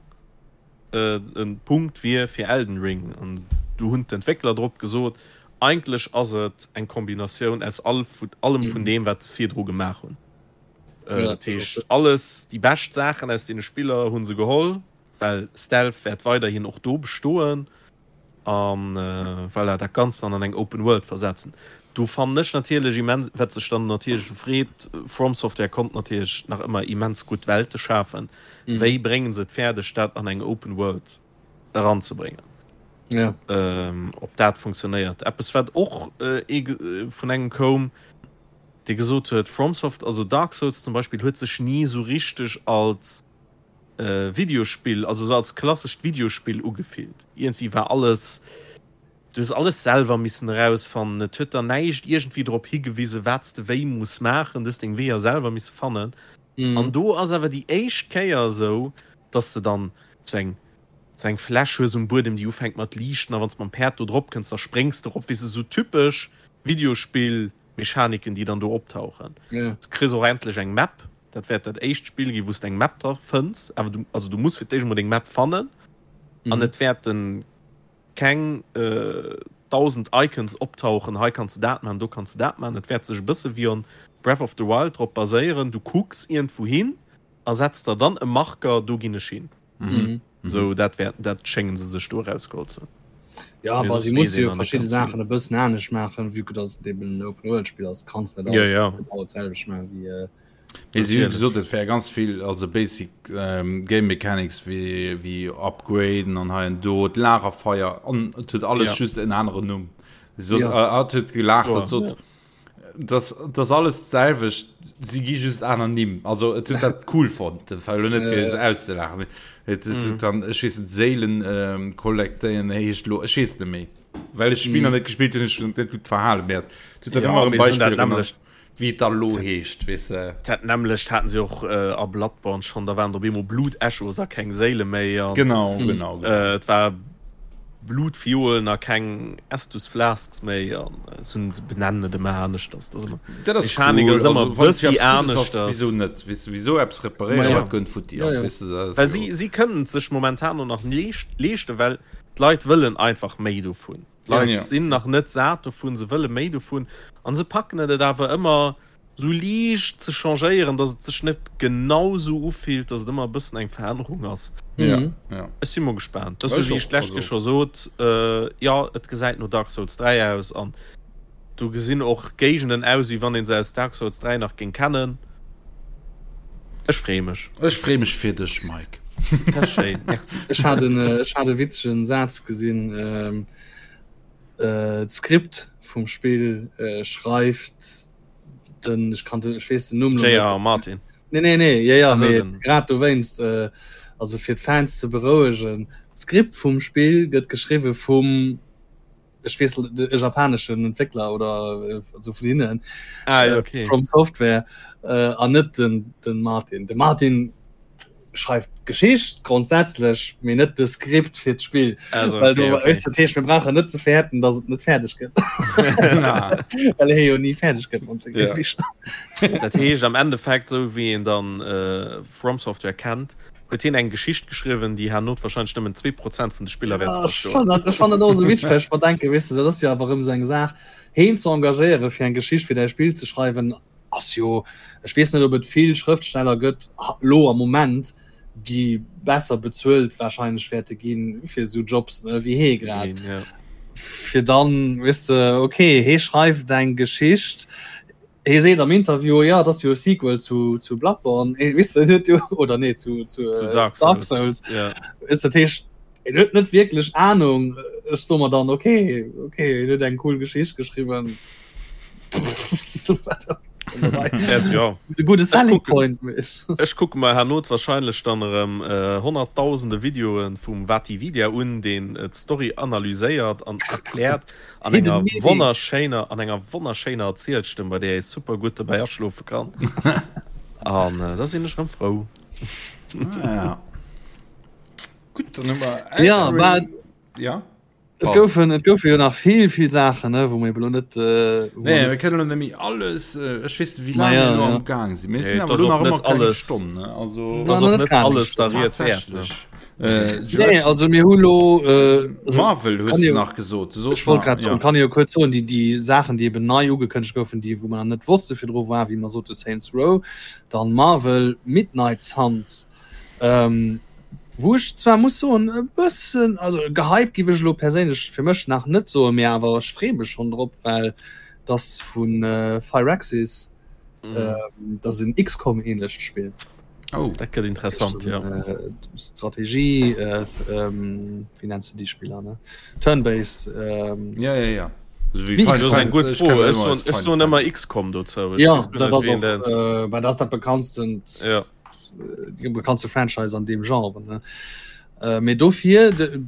e Punkt wier fir Elden Ring. An do hunn d'Entwéckler drop gesot, eigentlech ass et eng Kombinatioun aus all allem vun deem, wat se virdru gemaach hunn. Dat heescht, alles déi bescht Saachen aus deene Spiller hu se geholl, well Stealth wäert weiderhin och do bestoen a voilà, dat Ganzt dann an eng Open World versetzen. Do fannen ech natierlech immens, wat sech dann natierlech freet, From Software konnt natierlech nach ëmmer immens gutt Welte schafen. Wéi brénge se et fäerdeg, dat an eng Open World eranzebréngen? Ja. Ob dat funktionéiert. Eppes wat och vun engem koum, dee gesot huet, FromSoft, also Dark Souls zum Beispill, huet sech ni esou richteg als Videospill, also esou als klassescht Videospill ugefillt. Iergendwéi war alles, du hues alles selwer missen erausfannen, et huet der näischt iergendwéi drop higewisen, wat s de wéi muss maachen, du hues deng Weeër selwer misse fannen. An do ass awer déi éischt Kéier esou, dass de dann sou eng sou eng Fläsch hues um Buedem, déi ufänkt mat liichten, a wann s de mam Päerd do drop kënns, da spréngs de erop, weess de, sou typesch Videospill. Mechaniken déi dann do optauchen. Ja. Du kriss och endlech eng Map, dat wäert dat éischt Spill ginn wou s de eng Map dra fënns, awer du, also du muss fir d'éischt emol deng Map fannen an et wäerten keng 1000 Icons optauchen, hei kanns de dat maachen, do kanns de dat maachen. Et wäert sech e bësse wéi on Breath of the Wild drop baséieren, du kucks iergendwou hin a setz der dann e Marker, do ginn ech hin. Mhm. Sou dat wär, dat schéngen se sech do erausgeholl ze hunn. Ja, Mee aber soss si weess musse een jo nach net verschidde ganz vill. Saachen e bëssen anescht maachen, vue que dass et eben en Open-World-Spill ass, kanns net Ja, alles ja. genau d'selwecht maachen wéi. Äh, Mee si hu Natierlech. gesot, et wär ganz vill, also basic ähm, Game Mechanics wéi, wéi upgraden an hei an do, d'Lagerfeier an et huet alles Ja. just en aneren Numm. Si sot, Ja. äh, hat huet gelaacht, Kloer, hat sot, ja. Das, das alles d'selwecht, si gi just aner Nimm. Also et huet dat cool fonnt, dat war elo net fir se auszelachen. Mee et huet mm. dann ech weess net Séilen ähm, kollektéieren heescht lo ech weess net méi. Well ech Spiel mm. net gespielt hunn, ech net gutt verhalen wäert. Et huet dann ja, ëmmer e Beispiel genannt, wéi et da lo heescht, weess de. Dat nämmlecht haten se och äh, a Bloodborne schon, da waren op eemol Blut-Echos a keng Séile méi. An, genau, mm. genau, genau. Äh, et war Blutfiolen a keng Estus Flasks méi an se benennen et ëmmer aneschters. Dat ass ëmmer Dat ass Mechanik cool. ass ëmmer Also, wann bëssi eppes Guddes ass, aneschters. wieso net? Weess du, wieso eppes reparéieren, Ja. wat gönnt futti ass, Ja, ja. weess du, dat ass Well jo. si, si kënnen et sech momentan och nach leescht, leeschten, well d'Leit wëllen einfach méi dovun. D'Leit Ja. sinn nach net sat dovun, se wëlle méi dovun an se packen et et awer ëmmer sou liicht ze changéieren, dass et sech net genau sou ufillt, dass et ëmmer e bëssen eng Verännerung ass. Ja, ja. Ech si mol gespaant. Dat ass Ech sou wéi ech och, d'lescht also. Kéier scho sot, jo, et gesäit no Dark Souls 3 aus an do gesinn och Géigenden aus, wéi wann ee se aus Dark Souls 3 nach géing kennen. Ech freeë mech. Ech freeë mech fir dech, Mike. Dat ass schéin, merci. Ech hat en, ech hat e witzegen Saz gesinn, D'Skript vum Spill schreift den ech kann den ech weess den Numm lo net. J.R. Martin. Nee nee nee ja ja Also mee den. grad dowéinst äh, also fir d'Fans ze berouegen, d'Skript vum Spill gëtt geschriwwe vum ech weess de japaneschen Entwéckler oder äh, also vun hinnen Ah, äh, okay. From Software äh, an net den den Martin. De Martin schreift d'Geschicht grondsätzlech, mee net de Skript fir d'Spill. Also, Well okay, du okay. weess, dat heescht, mir brauchen net ze fäerten, datt et net fäerdeg gëtt. Well hie jo ni fäerdeg gëtt mat senge Ja. Bicher. Dat heescht am Endeffekt, esou wéi een dann äh, From Software kennt, huet hien eng Geschicht geschriwwen, déi herno wahrscheinlech nëmmen 2% vun de Spiller wäerte Ja, ech verstoen. fannen dat, ech fannen dat och esou witzeg, well ech mer denken, weess de, dat ass jo awer erëm esou eng Saach, heen ze engagéieren, fir eng Geschicht fir däi Spill ze schreiwen, ass jo, ech weess net ob et vill Schrëftsteller gëtt lo am Moment, déi besser bezuelt wahrscheinlech wäerte ginn fir esou Jobs ne, wéi hee grad. Ja. Fir dann weess de, okay, hee schreift eng Geschicht, hee seet am Interview, ja, dat ass jo e Sequel zu, zu Bloodborne, eh, weess de, en huet jo, oder nee, zu, zu, Zu äh, Dark Dark Souls. Souls. Ja. Weess de, dat heescht, en huet net wierklech Ahnung. Ech soe mer dann, okay, okay, en huet eng cool Geschicht geschriwwen. De gudde Selling Point. Ech kucke mer herno wahrscheinlech dann erëm honnertdausende Videoe vum VaatiVidya un, deen d'Story analyséiert an erkläert an enger wonnerschéiner an enger wonnerschéiner Erzielstëmm, bei där ee super gutt dobäi aschlofe kann. An da sinn ech erëm frou. Ah, ja. Gutt, dann hu mer ja, war, ja. Et goufen, et goufe jo nach vill, vill Saachen, ne, wou mir elo net. Äh, nee, mir kënnen net méi alles. Äh, ech weess wéi laang mir elo am Gaang sinn. Mir sinn awer elo nach ëmmer keng Stonn, ne? Also, dat ass och net alles der Ried wäert, ne? Äh, nee, also mir hu lo äh, also, Marvel hues du nach gesot. Du ech wollt grad soen, ja. kann jo kuerz soen, déi déi Saachen, déi eben nei ugekënnegt goufen, déi wou man net wosste virdru war, wéi mer sote Saints Row, dann Marvel Midnight Suns. Ähm, wou ech zwar muss soen e bëssen also gehypt giff ech elo perséinlech fir mech nach net soen, mee awer ech freeë mech schonn drop, well dass vu Firaxis, mm. dat ass en XCOM ähnlecht Spill. Oh, dat gëtt interessant ja. Äh, Strategie äh, ähm, wie nennst du die Spieler ne? Turn-based ähm, ja, ja, ja. Ech soen ëmmer XCOM dozou. Ja, dat ass och, äh, dat ass dat bekanntsten. Ja. déi bekanntste Franchise an deem Genre ne äh, mee dofir de,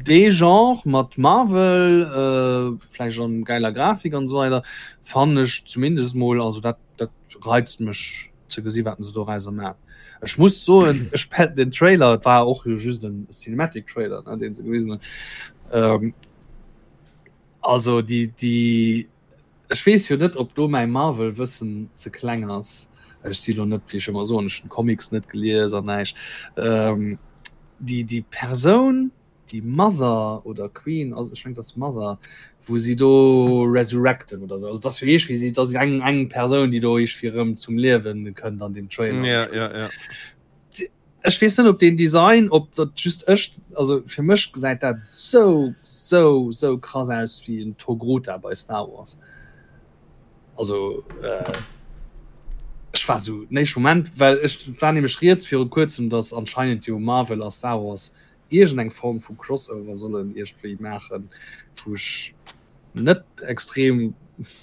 dee Genre mat Marvel äh, vläicht an geiler Grafik an esou weider fannen ech zumindest mol also dat dat reizt mech ze gesi wat se dorauser man. Ech muss soen ech pet den Trailer et war och jo just en Cinematic Trailer ne deen se gewisen hunn ähm, also déi déi Ech weess jo net op do mäi Marvel Wëssen ze kleng ass. Ech si lo net, wéi ech ëmmer soen, ech hunn d'Comics net gelies an näischt. Déi déi Persoun, déi Mother oder Queen ass, ech mengen et ass Mother, wou si do resurrecten oder sou. Also et ass jo iergwéi si, et ass eng eng Persoun, déi do iergwéi erëm zum Liewen kënnt an deem Trailer. Ja, ja, ja. Ech weess net op deen Design, op dat just ech, also fir mech gesäit dat sou sou sou krass aus wéi en Togruta bei Star Wars. Also äh, ech war sou den éischte Moment, well ech et war nämlech rieds viru kuerzem, datt anscheinend jo Marvel a Star Wars iergend eng Form vu Crossover sollen iergendwéi maachen, wou ech net extrem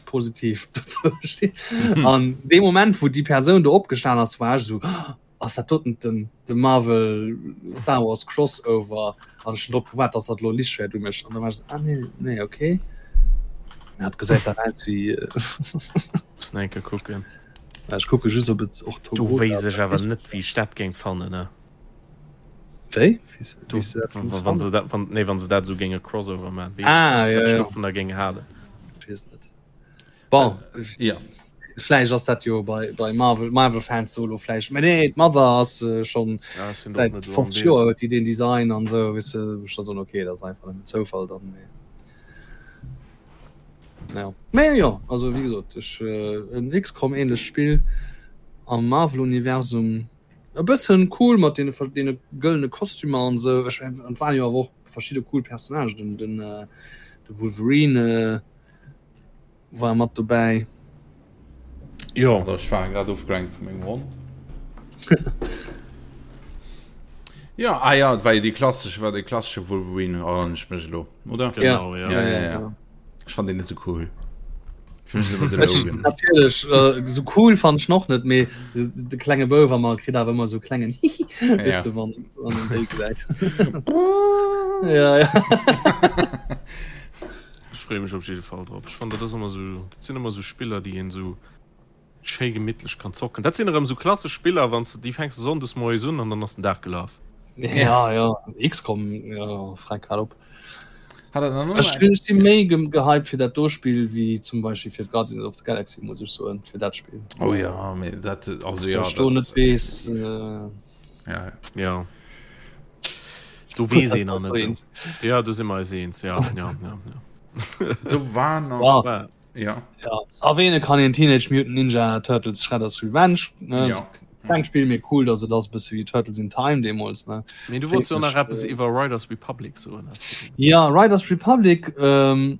positiv dozou stinn. An dee Moment wou déi Persoun do opgestan ass, war ech sou, Ass dat doten den de Marvel Star Wars Crossover? An ech hunn drop gewaart, dass dat elo Lichtschwäert umécht an da war ech esou, ah nee, nee, okay. Mä et gesäit dach aus wéi. Muss nach eng Kéier kucken. Ech kucke just ob et och Do wéisst ech awer net wéi ech dat géing fannen, ne? Wéi? Do, Wéi s de dat géings wann se dat, wann, nee, wann se dat esou géinge Crossover maachen, wéi Ah, ech ja, wat ech ja. dovunner géing halen. Ech weess et net. Bon, ja. Vläicht ass dat jo bei, bei Marvel, Marvel Fans solo vläicht. Mä nee, d'Mother ass äh, schon Ja, ech sinn och säit net esou am 50 Bild. Joer huet déi den Design an esou, weess de, ech da soen, okay, dat ass einfach nëmmen Zoufall dann. Mee ja. Mä jo, also wéi gesot, ech äh, en XCOM ähnlecht Spill am Marvel-Universum, e bëssen cool mat deene, deene gëllene Kostümer an esou. Ech, an et waren jo awer och verschidde cool Personnagen, den, den, äh, de Wolverine, äh, War mat dobäi. Jo. Ech war grad ofgelenkt vu mengem Hond. Jo, ah ja, et war jo dee klassesche, war dee klassesche Wolverine, erënneren ech mech elo, oder? Genau, ja. Ja, ja, ja. Ech fand deen net sou cool. Fir mech ass ëmmer de Logan. Natierlech, sou cool fand ech en och net, mee de klenge Bouf a mer kritt awer ëmmer sou klengen Hihi, weess de, wann en déi gesäit. Ja, ja. Ech freeë mech op jidde Fall drop. Ech fannen dat ass ëmmer sou, dat sinn ëmmer sou Spiller déi een sou schéi gemittlech kann zocken. Dat sinn erëm sou klassesch Spiller, wann s de déi fänks de Sonndes moies un an dann ass den Dag gelaf. Ja ja XCOM ja freck grad op. Hat er dann Ech ech si méi gehypt fir dat do Spill wéi zum Beispill fir d'Guardians of the Galaxy muss ech soen fir dat Spill. Oh ja mee dat also ja Ech do net weess. Äh... Ja. Ja. Du wees een an net. Ja du si mer eis eens ja ja ja. ja. Du war nach ja. Ja. Ja. Erwähne kann een Teenage Mutant Ninja Turtles Shredder's Revenge ne? Ja. Kleng Spiel mir cool, dass et ass bësse wéi Turtles in Time deemools ne. Mee du wollts jo nach eppes iwwer Riders Republic soen. Ja Riders Republic ähm,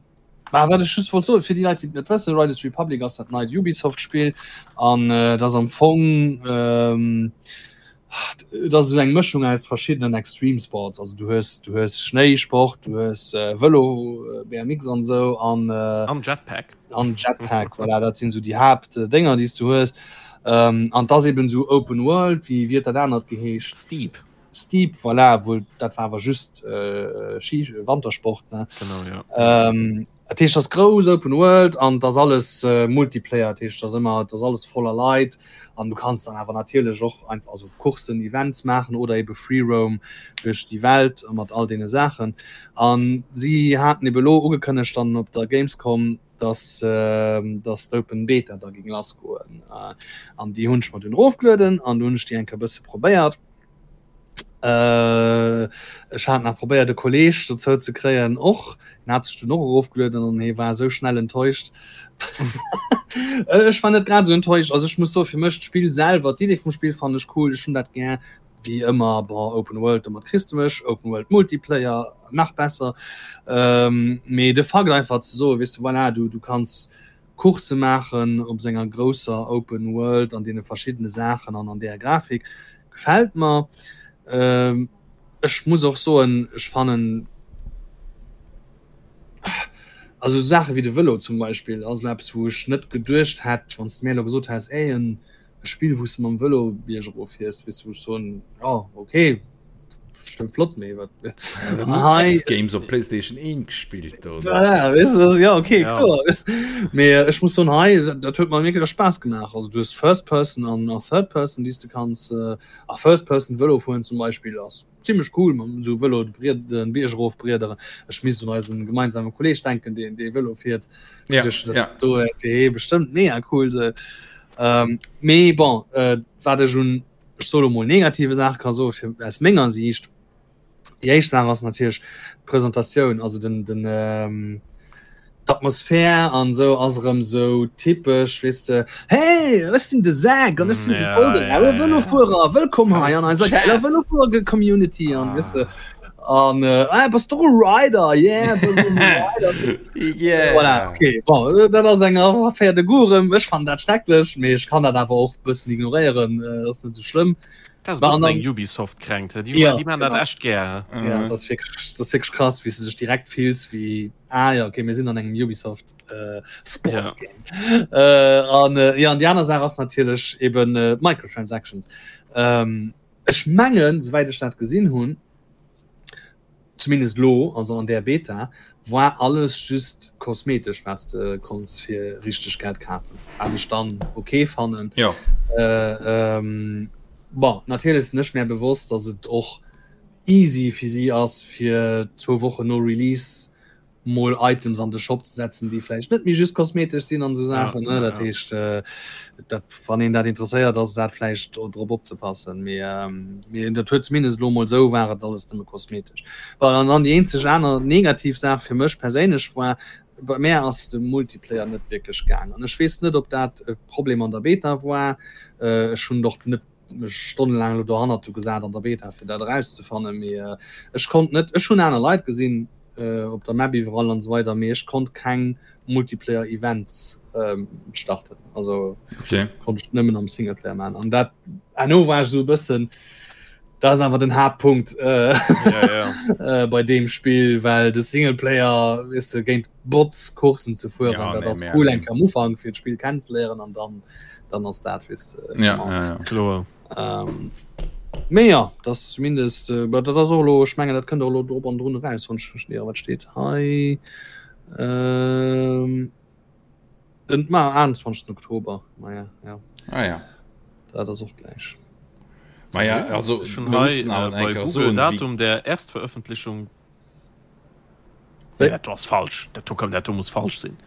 Bah, wat ech just wollt soen, fir déi Leit, déi et net wëssen, Riders Republic ass dat neit Ubisoft-Spill an äh, dat ass am Fong ähm, Et ass esou eng Mëschung aus verschiddenen Extreme Sports. Also du hues du hues Schnéisport, du hues äh, Vëlo, äh, BMX an esou an äh, an Jetpack. An Jetpack, voilà, dat sinn esou déi Haaptdénger, déi s du hues. Ähm, an 't ass eben esou Open World, wéi wéi huet dat anert geheescht? Steep. Steep, voilà, wou dat war awer just äh, Ski Wantersport, ne? Genau, ja. Ähm, Dat heescht, ass grouss Open World an et ass alles Multiplayer, dat heescht, ass ëmmer, et ass alles voller Leit an du kanns dann awer natierlech och einfach also Courssen, Events maachen oder ebe Free Roam duerch déi Welt mat all deene Saachen. An si haten ebe elo ugekënnegt dann op der Gamescom, dass dass d'Open Beta da géing lassgoen an déi hunn ech mer dunn erofgelueden an du hunn ech déi eng Kéier e bësse probéiert. Äh, ech hat nach probéiert e Kolleg dozou ze kréien och. En hat sech dunn och erofgelueden an hie war esou schnell enttäuscht. Ech war net grad esou enttäuscht. Also ech muss soen, fir mech d'Spill selwer, d'Idee vum Spill fannen ech cool, ech hunn dat gär. Wéi ëmmer, bon, Open World, domat kriss de mech, Open World Multiplayer, nach besser. Ähm, mee de Fakt einfach ze soen, weess de, voilà, du, du kanns Coursse maachen op senger grousser Open World an deene verschiddene Saachen an an där Grafik gefält mer. Ech muss och soen, ech fannen also esou Saache wéi de Vëlo zum Beispill ass elo eppes wou ech net geduecht hätt, wann s de mir elo gesot häss, ey en e Spill wou s de mam Vëlo biergerof fiers, weess de, wou ech soen, jo okay, bestëmmt flott, mee wat hei X-Games op PlayStation 1 gespillt oder? Voilà, weess de, ja okay, ja. kloer. Mee äh, ech muss soen, hei dat huet mer wierklech Spaass gemaach. Also du hues First Person an a Third Person, déi s de kanns äh, a First Person Vëlo fueren zum Beispill ass zimmlech cool mam esou Vëlo de Bried den Bierg erof briederen. Ech misst un eisen gemeinsame Kolleg denken, deen dee Vëlo fiert. Ja, Duerch dat ja. do fir hee bestëmmt mega cool se. Ähm, mee bon, äh, wat ech un ech soe lo mol negative Saache ka soe fir aus menger Siicht. Déi éischt Saach ass natierlech d'Presentatioun, also den, den ähm, d'Atmosphär an esou ass erëm esou typesch, weess de, Hey, ech sinn de Zack an ech sinn de voll de raue Vëlofuerer, wëllkomm hei an eiser geiler Vëlofuerer-Community an weess de. An äh, ah, bass du e Rider? Yeah, bass du e Rider? Yeah. Voilà, okay. Bon, äh, dat ass eng Affaire de goût erëm. Ech fannen dat schrecklech, mee ech kann dat awer och e bëssen ignoréieren, äh, ass net esou schlëmm. Dat ass e War bëssen an eng Ubisoft-Kränkt, hä? Déi, Ja, déi maachen dat genau. echt gär, hä? Ja, dat ass wierklech, dat ass wierklech krass, wéi s du dech direkt fills wéi, ah ja, okay, mir sinn an engem Ubisoft äh, Sports Game. Äh, an äh, ja, an déi aner Saach ass natierlech eben äh, Microtransactions. Ähm, ech mengen, souwäit ech dat gesinn hunn, zumindest lo, also an där Beta, war alles just kosmetesch, wat s de konns fir richteg Geld kafen, wat ech dann ok fannen. Jo. Bon, natierlech sinn ech mär bewosst, dass et och easy fir si ass, fir zwou Wochen no Release mol Items an de Shop ze setzen, déi vläicht net méi just kosmetesch sinn an esou Saachen. Ja, dat heescht, äh, dat, wann een dat interesséiert, ass dat vläicht drop opzepassen. Mee, ähm, mee dat huet zumindest elo mol esou war et alles nëmme kosmetesch. Well an dann déi eenzeg aner negativ Saach fir mech perséinlech war, bei mär ass de Multiplayer net wierklech gaang. An ech weess net, ob dat e Problem an der Beta war. Äh, ech hunn och net mech stonnelaang elo dohannert du gesat an der Beta fir dat erauszefannen, mee ech konnt net, ech hunn aner Leit gesinn op der Map iwwerall an esou weider, mee ech konnt keng Multiplayer Events starten, also okay. konnt ech nëmmen am Singleplayer man an dat herno war ech esou e bëssen, dat ass awer den Haaptpunkt äh, ja, ja. äh, bei deem Spill, well de Singleplayer weess de géint Bots Coursen ze fueren, Ja, dat nee, ass mär cool nee. eng Kéier am Ufank fir d'Spill kennenzeléieren an dann dann ass dat weess de Ja, genau. ja, ja. Kloer. Ähm, mee ja, dat ass zumindest äh, dat ass och elo, ech mengen dat kënnt och elo drop an drun eraus, wann ech mech net irre. Wat steet hei? Ähm, den ma 21. Oktober, ma ja, ja. Ah ja. Dat ass och gläich. Ma ja, also Ech hunn mir hei mussen awer äh, eng bei Kéier Google soen, wéi Datum der Erstveröffentlichung Nee, dat do ass falsch. Dat do kann, dat do muss falsch sinn.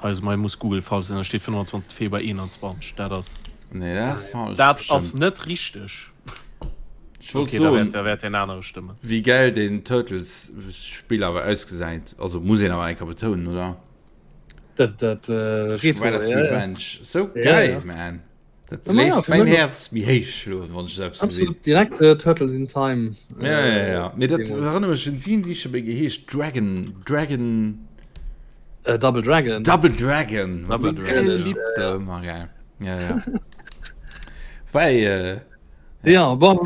Hei ass, hei muss Google falsch sinn. Da steet 25. Februar 21. Dat ass. Nee, dat ass falsch. Dat ass net richteg. Ech wollt Okay, da soen, wäert, da wäert deen anere stëmmen. wéi gäil deen Turtles-Spill awer ausgesäit. Also muss een awer eng Kéier betounen, oder? Dat, dat, äh, Retro, Shredder's ja, ja. Revenge. Sou Ja, geil, ja. man. Dat Ja, ma ja, léisst fir mäin mech ass Häerz méi héich schloen, wann ech esou eppes gesinn. absolut direkt äh, Turtles in Time. Ja, ja, ja, ja. Mee dat deemools. erënnert mech un, wéi hunn déi scho méi geheescht? Dragon, Dragon. Äh, Double Dragon. Double Dragon. Mat Double deem Dragon, gäile ja. Lidd do ëmmer, gell. Ja, ja. Wobäi, äh. Ja, bon,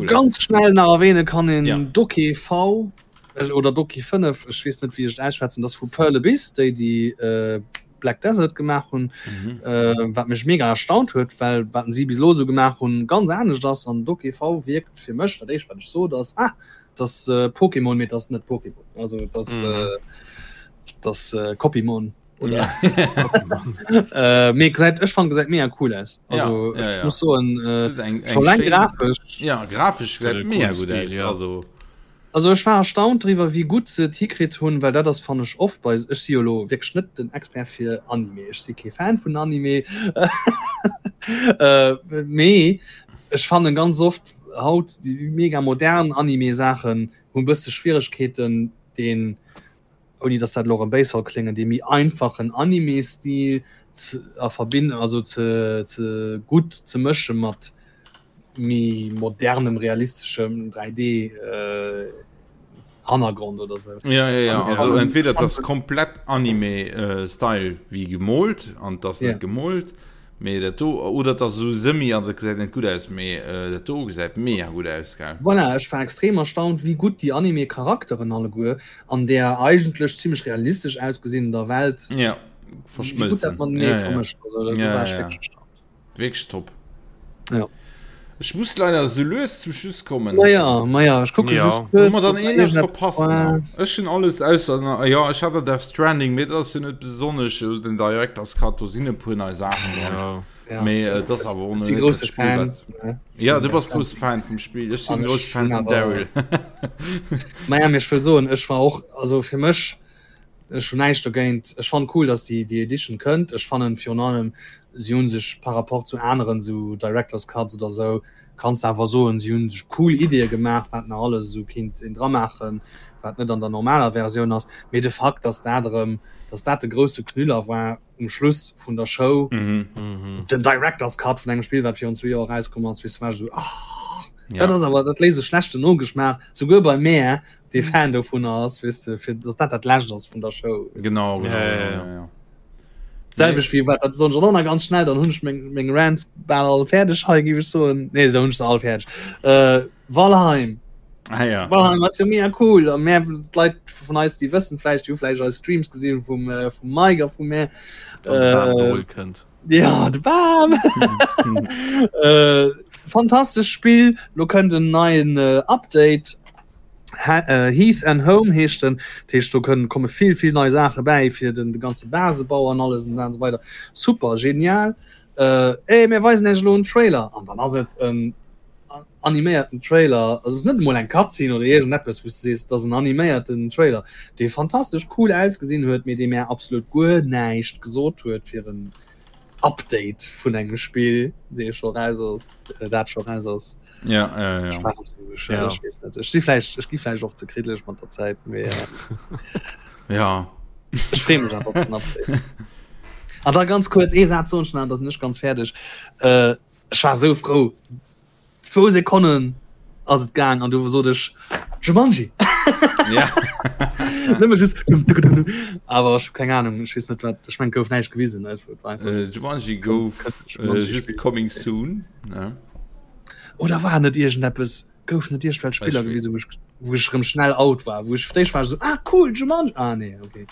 ganz schnell nach erwähne kann een ja. Doki V äh, oder Doki 5, ech weess net wéi ech et ausschwätzen, das vu Pearl Abyss, déi déi äh, Black Desert gemaach hunn, mhm. äh, wat mech mega erstaunt huet, well wat si bis lo sou gemaach hunn ganz anescht ass an Doki V wierkt fir mech dat éischt wat ech sot ass ah, das äh, Pokémon mee das net Pokémon also das mhm. äh, das äh, Copymon oder äh, mee gesäit ech fand gesäit mega cool aus also ja, ja, ja. muss so äh, eng, eng schön, grafisch ja grafisch gesäit mega gut aus ja. also also ech war erstaunt driwwer wéi gutt se et hikritt hunn well dat ass fannen ech oft bei ech si jo lo wierklech net den Expert fir Anime ech si kee Fan vun Anime äh, mee ech fannen ganz oft haut déi mega modern Anime Saachen hunn bësse Schwieregkeeten den ouni dass dat elo erëm béis soll kléngen, dee méi einfachen Anime-Stil ze a verbinden, also ze ze gutt ze mësche mat méi modernem realisteschem 3D Hannergrond oder sou. Ja, ja, ja. Also entweder dat ass komplett Anime-Style wéi gemoolt an dat ass net gemoolt. Mee dat do, oder et ass esou semi an dat gesäit net gutt aus, mee dat do gesäit mega gutt aus, gell? Voilà, ech war extrem erstaunt wéi gutt déi Anime Charakteren alleguer an där eigentlech zimmlech realistesch ausgesinnender Welt ja, verschmëlzen. Ja, ja. Also, da ja, war ech ja. wierklech erstaunt. Wierklech top. Ja. Ech muss leider sou lues zum Schluss kommen. Maja, maja, ech kucke ja. just kuerz. Hu mer dann een eppes verpasst? Ech hunn alles ausser, ja, ech hat der Death Stranding, mee dat ass jo net besonnesch den Director's Cut, do sinn e puer nei Saachen dran. Ja. Ja. Mee äh, das awer och net dat Spill, Fan, wat... Ja, du bass grousse Fan vum Spill. Ech sinn grousse Fan vum Daryl. Maja, mee ech wëll soen, ech war och, also fir mech, Ech hunn näischt dogéint. Ech fannen cool, dass déi déi Edition kënnt. Ech fannen virun allem, si hunn sech par rapport zu aneren esou Director's Cuts oder esou, kanns de awer soen, si hunn sech cool Ideeë gemaach, wat nach alles esou kinnt een dramaachen, wat net an der normaler Versioun ass. Mee de Fakt, dass dat erëm, dass dat de grousse Knüller war um Schluss vun der Show, den Director's Cut vun engem Spill, wat virun zwee Joer erauskomm ass, weess de, war ech esou, ah, dat ass awer, dat léisst e schlechten Nogeschmaach, souguer bei mär, dee Fan dovunner ass, weess de, fir dass dat dat Lescht ass vun der Show. Genau, genau, ja, ja, ja, ja. Selwecht wéi wat dat soen ech och nach ganz schnell, dann hunn ech meng, meng Rants bal all fäerdeg hei, géif ech soen. Nee, esou hunn ech se all fäerdeg. Äh, Valheim. Ah, ja. Valheim ass jo mega cool. A mär, d'Leit vun eis, déi wëssen vläicht, déi hu vläicht eis Streams gesinn vum, äh, vum Mike a vu mär. Wann de Bam geholl kënnt. Ja, de Bam! äh, fantastesch Spill. Lo kënnt en neien äh, Update. Ha äh, Heath and Home heescht den. Dat heescht, do kënnen komme vill, vill nei Saache bäi fir den de ganze Basebau an alles an esou weider. Super, genial. Äh, ey, mir weisen iech elo en Trailer. An dann ass et en animéierten Trailer, also es ass net emol eng Cutscene oder iergendeppes, wou s de sees, et ass en animéierten Trailer, dee fantastesch cool ausgesinn huet, mee dee mär absolut guer näischt gesot huet fir en Update vun engem Spill, dee scho raus ass, dat scho raus ass. Ja, ja, ja. Ech war esou, ech, ja. ech weess net. Ech si vläicht, ech gi vläicht och ze kriddlech mat der Zäit, mee ja. Ech freeë mech awer op den Update. An da ganz kuerz ee Saz soen ech nach, da sinn ech ganz fäerdeg. Äh, Ech war sou frou. Zwou Sekonnen ass et gaang an du sot ech Jumanji. Ja. Nëmme just awer ech hu keng Ahnung, ech weess net wat ech meng gouf näischt gewisen ne? Et war einfach Äh, just Jumanji gouf Jumanji äh, just Spiel. coming soon. Ne? Oder war net iergendeppes gouf net iergendwelch Spiller Ech- gewisen, wou ech wou ech rëm schnell out war, wou ech fir d'éischt war ech sou ah cool Jumanji ah nee okay.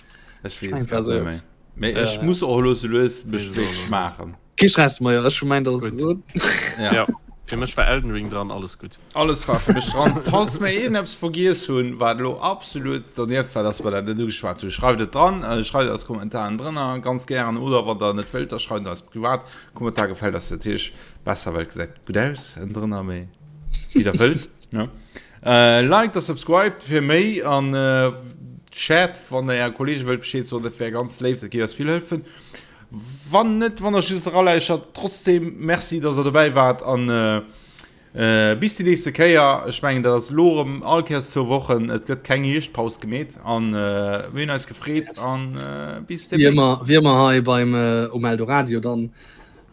Ech weess Einfach et sou net méi. Mee ech Äh. muss och elo sou lues mech wéi maachen. Kee Stress, Maja, ech hu mäint alles gesot. Ja. Ja, fir mech war Elden Ring dran, alles gutt. Alles war fir mech dran. Falls mir iergendeppes vergiess hunn, wat elo absolut dernieft war, dass mer dat net ugeschwat hunn, schreift et dran, schreift et als Kommentaren drënner, ganz gären. Oder wann der net wëllt, da schreift et eis privat. Kommentar gefält eis natierlech besser, well et gesäit gutt aus ënnendrënner, mee wéi der wëllt, ne? Liked a subscribed fir méi an shared, wann der äre Kollege wëllt Bescheed soen, dat wär ganz léif, dat géif eis vill hëllefen. Wann net, wann der just eraläuschert, trotzdem Merci, dass der dobäi waart an bis déi nächste Kéier. Ech mengen, dat ass elo erëm all Kéiers zwou Wochen. Et gëtt keng Hierschtpaus gemeet an mir hunn eis gefreet an bis Wéi ëmmer, demnächst. wéi ëmmer hei beim um Eldoradio dann.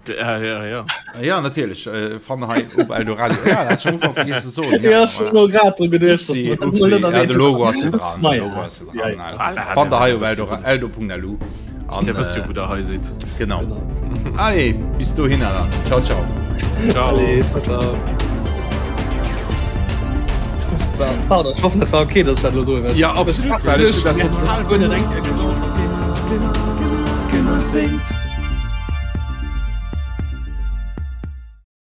Ja, ja, ja. Ja, natierlech. Äh, fannt hei op Eldoradio. Ja, dat hat ech am Ufank vergiess ze soen. Ja, ech hunn elo grad dru geduecht, dass Upsi, mer dat upsi. mol net Ja, de erwähnt Logo ass jo hunn. dran. Ups, De naja. Logo ass jo Ja, dran. ja. Also, fannt hei op Eldora, eldo.lu. An, Dir wësst jo, äh, wou der hei sidd. genau. Genau. Allez, bis dohinner dann. Ciao, ciao. Ciao. Allez, ciao, ciao. Pardon, ech hoffen, dat war okay, dass ech dat elo soen. Ja, absolut, well ech hunn dat total guer net eng Kéier gesot. Gamer Things.